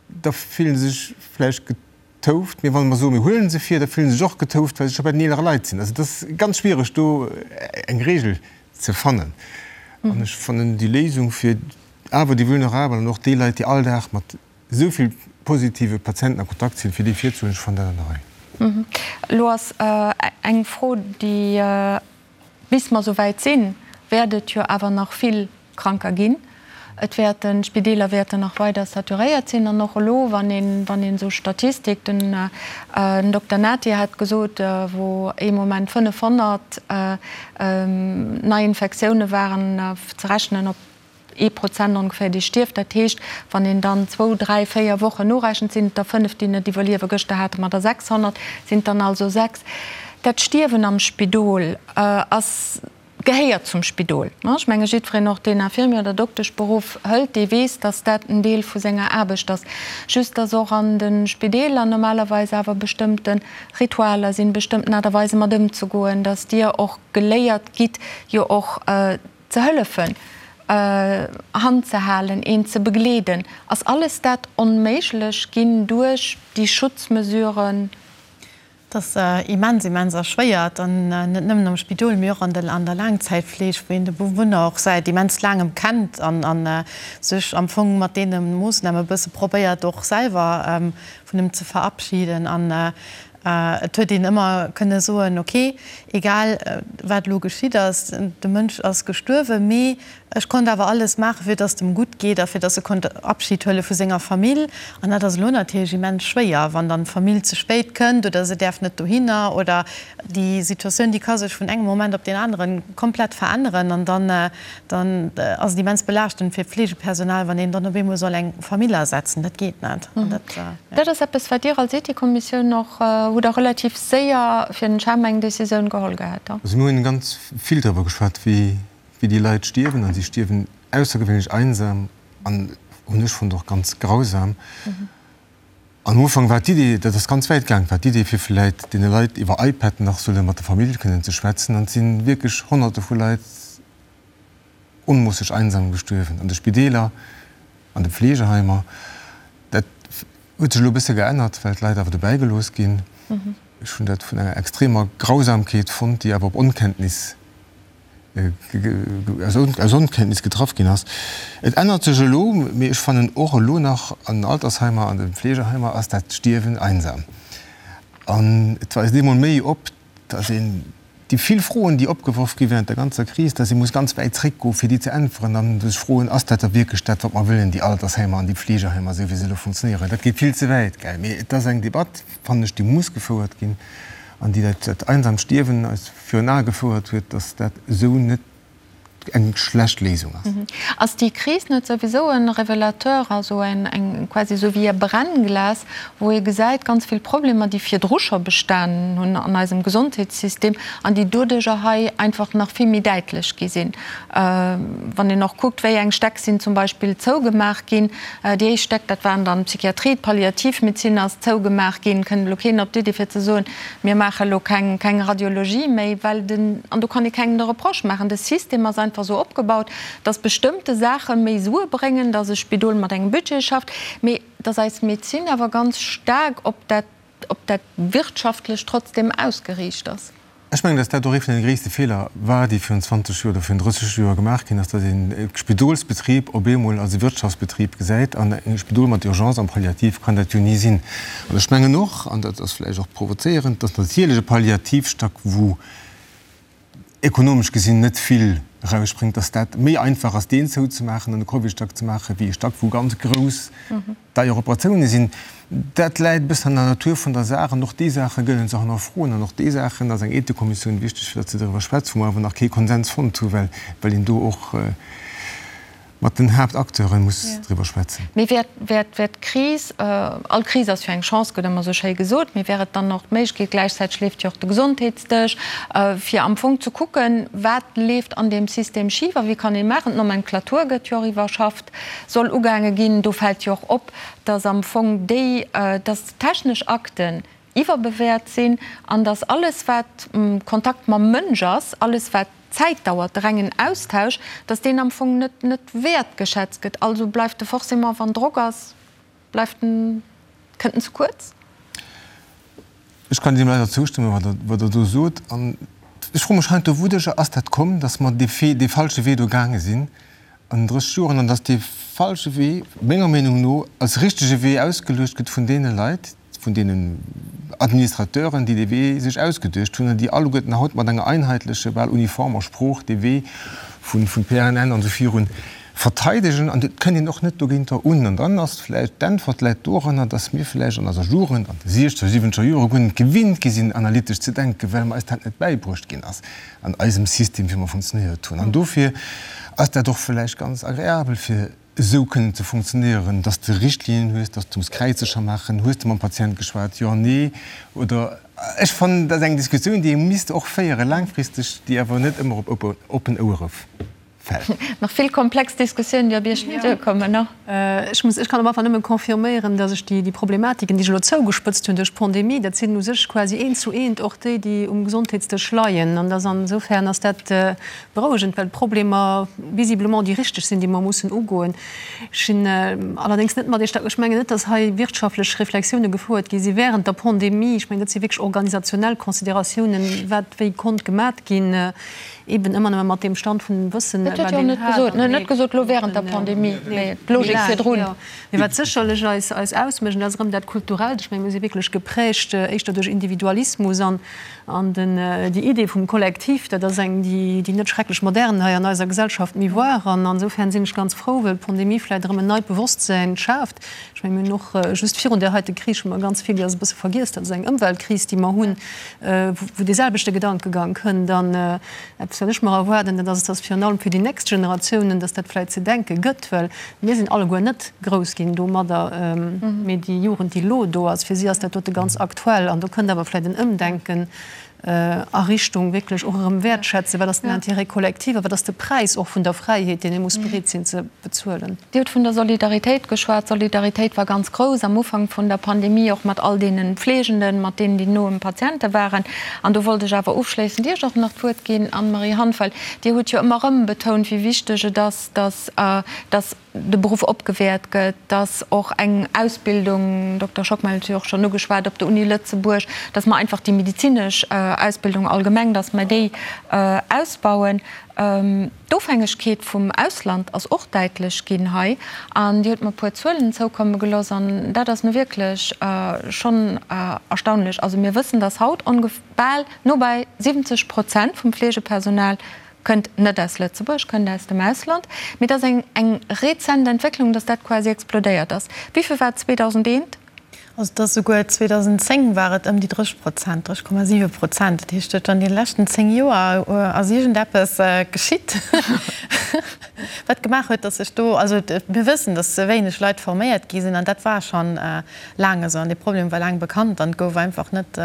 da fillen se sech vläicht getouft, mee wa mer soen, mir huelen se vir, da fillen se sech och getouft, well se scho bei den eelere Leit sinn. Also et ass ganz schwiereg do eng Regel ze fannen. An ech fannen déi Léisung fir awer déi vulnerabel an och déi Leit, déi all Dag mat esou vill positive Patienten a Kontakt sinn, fir déi virzehuelen, ech fannen dat an der Rei. Elo ass eng Fro, déi, bis mer esou wäit sinn, wäert et jo awer nach vill Kranker ginn. Et wäerten, d'Spideeler wäerten nach weider saturéiert sinn. An och elo, wann een, wann een esou Statistik, den Dokter Nati hat gesot, wou ee Moment 500 Neiinfektioune waren, ze rechnen op ee Prozent ongeféier, dee stierft. Dat heescht, wann een dann zwou, dräi, véier Wochen norechent, sinn et der fënnef, déi net iwwerliewen. Gëschter hate mer der 600, sinn et dann also sechs. Dat Stierwen am Spidol ass, gehéiert zum Spidol. Ech menge jiddwereen, och deen Infirmier oder Dokteschberuff hëlt, dee weess, datt dat en Deel vu senger Aarbecht ass. Just datt och an de Spideeler normalerweis awer bestëmmte Ritualer sinn, bestëmmten Aart a Weise mat ëmzegoen, datt Dir och geléiert gitt, jo och Ze hëllefen, Hand ze halen, een ze begleeden, ass alles dat onméiglech ginn duerch déi Schutzmesuren? Et ass immens, immens erschwéiert, an net nëmmen am Spidol, mee och an der Laangzäitfleeg, wou een de Bewunner och säit immens laangem kennt an sech am Fong mat deene Moossname e bësse probéiert och selwer vun em ze verabschieden. An Et huet een ëmmer kënne soen, ok, egal wat elo geschitt ass, de Mënsch ass gestuerwen, mee ech konnt awer alles maachen, fir datt et em gutt geet a fir datt e konnt Abschid huele vu senger Famill. An dat ass elo natierlech immens schwéier, wann dann d'Famill ze spéit kënnt oder se däerf net dohinner oder déi Situatioun, déi ka sech vun engem Moment op deen anere komplett veränneren an dann dann ass et immens belaaschtend fir d'Fleegepersonal, wann een dann op eemol soll eng Famill ersetzen. Dat geet net. An dat, ja. Dat ass eppes, wat Dir als Ethikkommissioun och hutt Der relativ séier fir den CHEM eng Décisioun geholl gehat. Also mir hunn ganz vill driwwer geschwat, wéi déi Leit stierwen. A si stierwen aussergewéinlech einsam an, hunn ech fonnt, och ganz grausam. Am Ufank war d'Idee, dat ass ganz wäit gaang, war d'Idee fir vläit deene Leit iwwer iPad nach solle mat der Famill kënnen ze schwätzen. An et si wierklech Honnerte vu Leit onmoosseg einsam gestuerwen, an de Spideeler, an de Pflegeheimer. Huet sech elo e bësse geännert, well d'Leit awer dobäi gelooss ginn. Ech hunn dat vun enger extremer Grausamkeet fonnt, déi awer op Onkenntnis, aus Onkenntnis getraff ginn ass. Et ännert sech elo, mee ech fannen och elo nach an den Altersheimer, an de Fleegeheimer ass dat Stierwen einsam. An et weist eemol méi op, dass een déi vill Froen, déi opgeworf gi während der ganzer Kris, dass ee muss ganz wäit zréckgoen, fir déi ze äntweren an sech froen, Ass dat da wierklech dat, wat mer wëllen, déi Altersheimer an déi Fleegeheimer, esou wéi se elo funktionéieren? Dat geet vill ze wäit, gell? Mee et ass eng Debatt, fannen ech, déi muss gefouert ginn an déi dat einsamt Stierwen eis virun Ae gefouert huet, dass dat esou net eng schlecht Léisung ass. Ass déi Kris net souwisou e Révélateur, also eng quasi esou wéi e Brennglas, wou ee gesäit, ganz vill Problemer, déi virdru scho bestanen hunn an eisem Gesondheetssystem an déi doduerjer hei einfach nach vill méi däitlech gi sinn? Wann een och kuckt, wéi eng Stäck sinn zum Beispill zougemaach ginn. Déi éischt Stäck, dat waren dann d'Psychiatrie, d'Palliativmedezin ass zougemaach ginn. Kënnt elo keen op d'Iddi fir ze soen, Mir maache elo keng, keng Radiologie méi, well den, an do kann ee kengem de Reproche maachen, de System ass einfach esou opgebaut, dass bestëmmte Saache méi Sue bréngen, dass e Spidol mat engem Budget schafft, mee dass eis Medezin awer ganz staark op dat, op dat Wirtschaftlecht trotzdem ausgeriicht ass. Ech mengen, dass dat och ee vun deene gréisste Feeler war, déi virun 20 Joer oder virun 30 Joer gemaach ginn ass, dass een e Spidolsbetrib op eemol als e Wirtschaftsbetrib gesäit. An e Spidol mat Urgence an Palliativ kann dat jo ni sinn. An ech mengen och, an dat ass vläicht och provozéierend, dass natierlech e Palliativstack, wou ekonomesch gesinn net vill erausspréngt, dass dat méi einfach ass, deen zouzemaachen an e Covidstack ze maachen, wéi e Stack, wou ganz grouss deier Operatioune sinn. Dat läit e bëssen an der Natur vun der Saach. An och déi Saache gëllen ze hannerfroen. An och déi Saachen ass eng Ethikkommissioun wichteg, fir datt se doriwwer schwätzt, wou mer awer nach kee Konsens fonnt hu well een do och mat den Haaptacteure muss driwwer schwätzen. Mee wär, wär, wär d'Kris, all Kris ass jo eng Chance, gëtt ëmmer esou schéi gesot, mee wär et dann och d'Méiglechkeet, gläichzäiteg leeft jo och de Gesondheetsdësch, fir am Fong ze kucken, wat leeft an deem System schif a wéi kann ee maachen? D'Nomenclature gëtt jo och iwwerschafft, soll ugaange ginn. Do fält jo och op, dass am Fong déi, dass technesch Akten iwwerbewäert sinn an dass alles, wat Kontakt mam Mënsch ass, alles, wat Zäit dauert, de rengen Austausch, dass deen am Fong net net wäertgeschätzt gëtt. Also bleift de forcément, wann Drock ass, bleift en, kënnt en ze kuerz. Ech kann deem leider zoustëmmen, wat Der, wat Der do sot. An ech froe mech heiansdo, Wouduercher ass dat komm, dass mer dee, dee falsche Wee do gaange sinn an 30 Joren an dass dee falsche Wee, menger Meenung no, als richtege Wee ausgeluecht gëtt vun deene Leit, vun deenen Administrateuren, déi dee Wee sech ausgeduecht hunn an déi alleguerten haut mat enger einheitleche, bal uniformer Sprooch dee Wee vu PRNN an esou virun verteidegen. An et kënnt een och net dogéinter un. An dann ass vläicht d'Äntwert läit doranner, dass mir vläicht an eiser Jugend, an de siechzeger, siwwenzeger Jore guer net gewinnt gi sinn, analytesch ze denken, well mer eis dat net bäibruecht ginn ass an eisem System, wéi mer funktionéiert hunn. An dofir ass dat och vläicht ganz agreabel fir esou kënnen ze funktionéieren, dass de Richtlinien hues, dass du muss Kräizecher maachen, hues de mam Patient geschwat, jo, nee, oder ech fannen, dat ass eng Diskussioun, déi ee misst och féiere laangfristeg, déi awer net ëmmer op oppen Ouere fält. Nach vill komplex Diskussiounen, déi op Iech duerkommen, no? Ech muss, ech kann op alle Fall nëmme confirméieren, dass ech déi, déi Problematiken, déi ech elo zougespëtzt hunn duerch d'Pandemie, dat sinn u sech quasi eent zu eent och déi, déi um Gesondheetsdësch leien. An dass insofern ass dat Berouegend, well d'Problemer visiblement déi richteg sinn, déi mer mussen ugoen. Ech sinn allerdéngs net mat Iech d'accord. Ech mengen net, datt hei wirtschaftlech Reflexioune gefouert gi si während der Pandemie. Ech mengen, dat si wierklech organisationell Consideratiounen, wat wéi konnt gemat ginn, eben ëmmer nëmme mat deem Stand vun Wëssen, Dat huet jo och net gesot. Net gesot elo während der Pandemie, mee d'Logik virdrun. Mee wat sécherlech eis eis ausmécht, an dat ass erëm dat Kulturellt, ech mengen, mir si wierklech geprägt éischter duerch Individualismus an An den, déi Idee vum Kollektiv, dat ass eng, déi, déi net schrecklech modern hei an eiser Gesellschaft méi war. An insofern sinn ech ganz frou, well d'Pandemie vläicht erëm en neit Bewosstsäin schaaft. Ech mengen, mir hunn och just virun där heite Kris hu mer ganz vill, déi ass e bësse vergiess, dat ass eng Ëmweltkris, déi mer hunn, wou dee selwechte Gedankegang kënnt. An eppes, wat ech mer erwaarden, dat ass, dass virun allem fir déi nächst Generatiounen, dass dat vläicht ze denke gëtt, well Mir sinn alleguer net grouss ginn domadder, mee déi Jugend, déi elo do ass, fir si ass dat dote ganz aktuell. An do kënnt awer vläicht en Ëmdenken a Richtung wierklech och erëm wäertschätzen, wat ass den Intérêt collectif a wat ass de Präis och vun der Fräiheet, deen ee muss bereet sinn ze bezuelen. Dir hutt vun der Solidaritéit geschwat. D'Solidaritéit war ganz grouss am Ufank vun der Pandemie, och mat all deene Fleegenden, mat deenen, déi no um Patiente waren. An do wollt ech awer ofschléissend Iech och nach d'Wuert ginn, Anne-Marie Hanff, well Dir hutt jo ëmmer erëm betount, wéi wichteg et ass, dass, dass. de Beruff opgewäert gëtt, dass och eng Ausbildung, Dokter Schockmel huet jo och schonn ugeschwat, op der Uni Lëtzebuerg, dass mer einfach déi medezinesch Ausbildung allgemeng, dass mer déi ausbauen. D'Ofhängegkeet vum Ausland ass och däitlech ginn hei. An Dir hutt mer e puer Zuelen zoukomme gelooss an dat ass nu wierklech schonn erstaunlech. Also mir wëssen, dass haut ongef bal no bei 70 Prozent vum Fleegepersonal Kënnt net aus Lëtzebuerg, kënnt aus dem Ausland. Mee et ass eng eng rezent Entwécklung, datt dat quasi explodéiert ass. Wéi vill war et 2001? Also et ass souguer 2010 war et ëm déi 30 Prozent, 30,7 Prozent. Dat heescht, an deene leschten 10 Joer ass iergendeppes geschitt, wat gemaach huet, datt sech do, also mir wëssen, datt ze wéineg Leit forméiert gi sinn an dat war schonn laang esou an dee Problem war laang bekannt an et gouf einfach net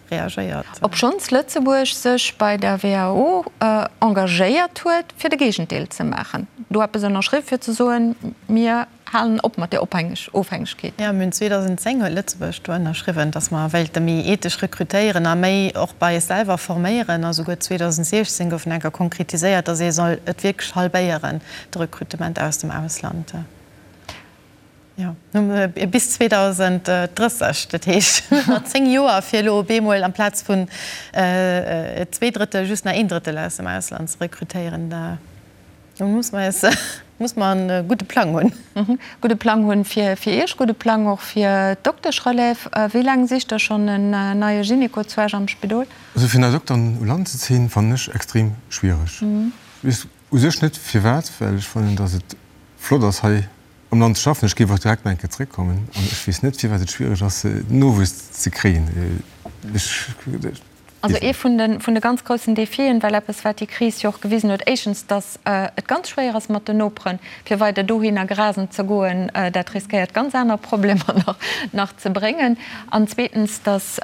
reagéiert. Obschonns Lëtzebuerg sech bei der WHO engagéiert huet, fir de Géigendeel ze maachen, do eppes ënnerschriww fir ze soen, mir halen op mat där Ofhängegkeet. Jo, mir hunn 2010 huet Lëtzebuerg do ënnerschriwwen, datt mer wéilte méi ethesch rekrutéieren a méi och bei eis selwer forméieren. A souguer 2016 gouf nach eng Kéier konkretiséiert, datt ee soll et wierklech halbéieren, de Rekrutement aus dem Ausland. Jo, bis 2030, dat heescht nach 10 Joer, fir elo op eemol amplaz vun zweedrëttel just nach een Drëttel aus dem Ausland ze rekrutéieren. Do muss mer eis, muss mer e gudde Plang hunn. Gudde Plang hunn fir Iech, gudde Plang och fir d'Dokteschrelève. Wéi laang sicht Der schonn en neie Gynéco zu Esch am Spidol? Also fir nei Dokteren u Land ze zéien, fannen ech extrem schwiereg. Ech weess u sech net firwat, well ech fannen, datt et flott ass hei am Land ze schaffen. Ech géif och direkt nach eng Kéier zréckkommen an ech weess net, firwat et schwiereg ass, Nowuess ze kréien. Ech weess Also ee vun de, vun de ganz groussen Defien, well eppes, wat déi Kris jo och gewisen huet, éischtens, datt et ganz schwéier ass mat den Noperen, fir weider dohinner grasen ze goen, dat riskéiert ganz aner Problemer nach, nach ze bréngen, an zweetens, datt,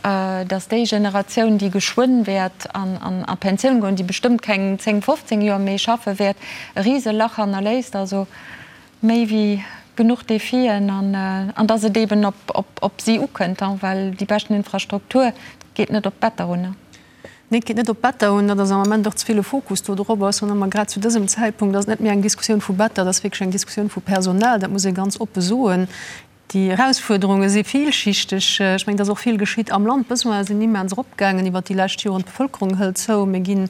datt déi Generatioun, déi geschwënn wäert an, an a Pensioun goen, déi bestëmmt keng 10, 15 Joer méi schaffe wäert, e Riselach hannerléisst. Also Méi wéi genuch Defien an dass et eeben op si ukënnt, well déi beschten Infrastruktur geet net op d'Better un. Nee, et geet net op d'Better un. Dat ass am Ament och ze vill e Fokus do drop ass. An ëmmer grad zu dësem Zäitpunkt ass et net méi eng Diskussioun vu Better, et ass wierklech eng Diskussioun vu Personal. Dat muss ee ganz oppe soen. Déi Erausfuerderunge si villschichteg. Ech mengen, et ass och vill geschitt am Land. D'Besoine sinn immens eropgaangen iwwert déi lescht Joren. D'Bevëlkerung hëlt zou. Mir gi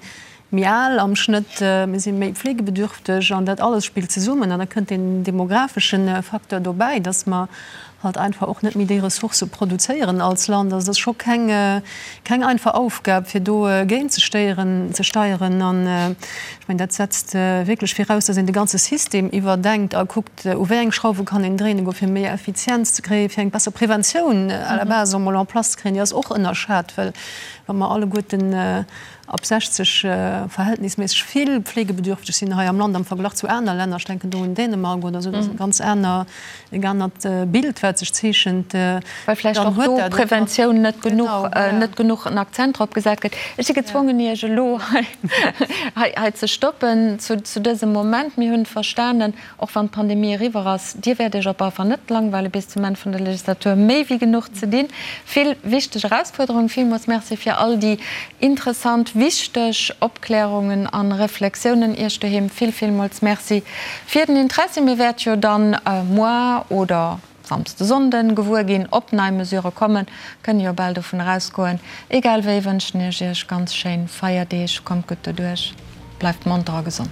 méi al am Schnëtt. Mir si méi pflegebedürfteg. An dat alles spillt zesummen. An da kënnt deen demografesche Facteur dobäi, dass mer halt einfach och net méi déi Ressourcë produzéieren als Land. Also et ass scho keng, keng einfach Aufgab, fir do géintzestéieren, ze steieren. An ech mengen, dat setzt wierklech viraus, dass een de ganze System iwwerdenkt a kuckt, U wéi eng Schrauwe kann een dréinen goen, fir méi Effizienz ze kréien, fir eng besser Preventioun à la base emol en place ze kréien? Déi ass och ënnerschat, well wa mer alleguerten ab 60 verhältnisméisseg vill pflegebedürfteg sinn hei am Land am Verglach zu aner Länner, ech denken do un Dänemark oder esou, dat ass e ganz aner, e anert Bild, wat sech zeechent. Well vläicht och do Preventioun net genuch, net genuch en Akzent drop gesat gëtt. Ech si gezwongen, Iech elo hei, hei ze stoppen zu, zu dësem Moment. Mir hunn verstanen, Och wann d'Pandemie eriwwer ass, Dir wäert Iech op alle Fall net langweile bis zum Enn vun der Legislatur. Méi wéi genuch ze dinn, vill wichteg Erausfuerderungen. Villmools Merci fir all déi interessant, wichteg Opklärungen a Reflexiounen. Iech doheem vill, villmools Merci fir den Interessi. Mir wäert jo dann muar oder Samsde, Sonnden gewuer ginn, ob nei Mesure kommen. Kënne jo bal dovun erausgoen. Egal wéi wënschen ech Iech ganz schéin Feierdeeg. Kommt gutt doduerch, bleift monter a gesond.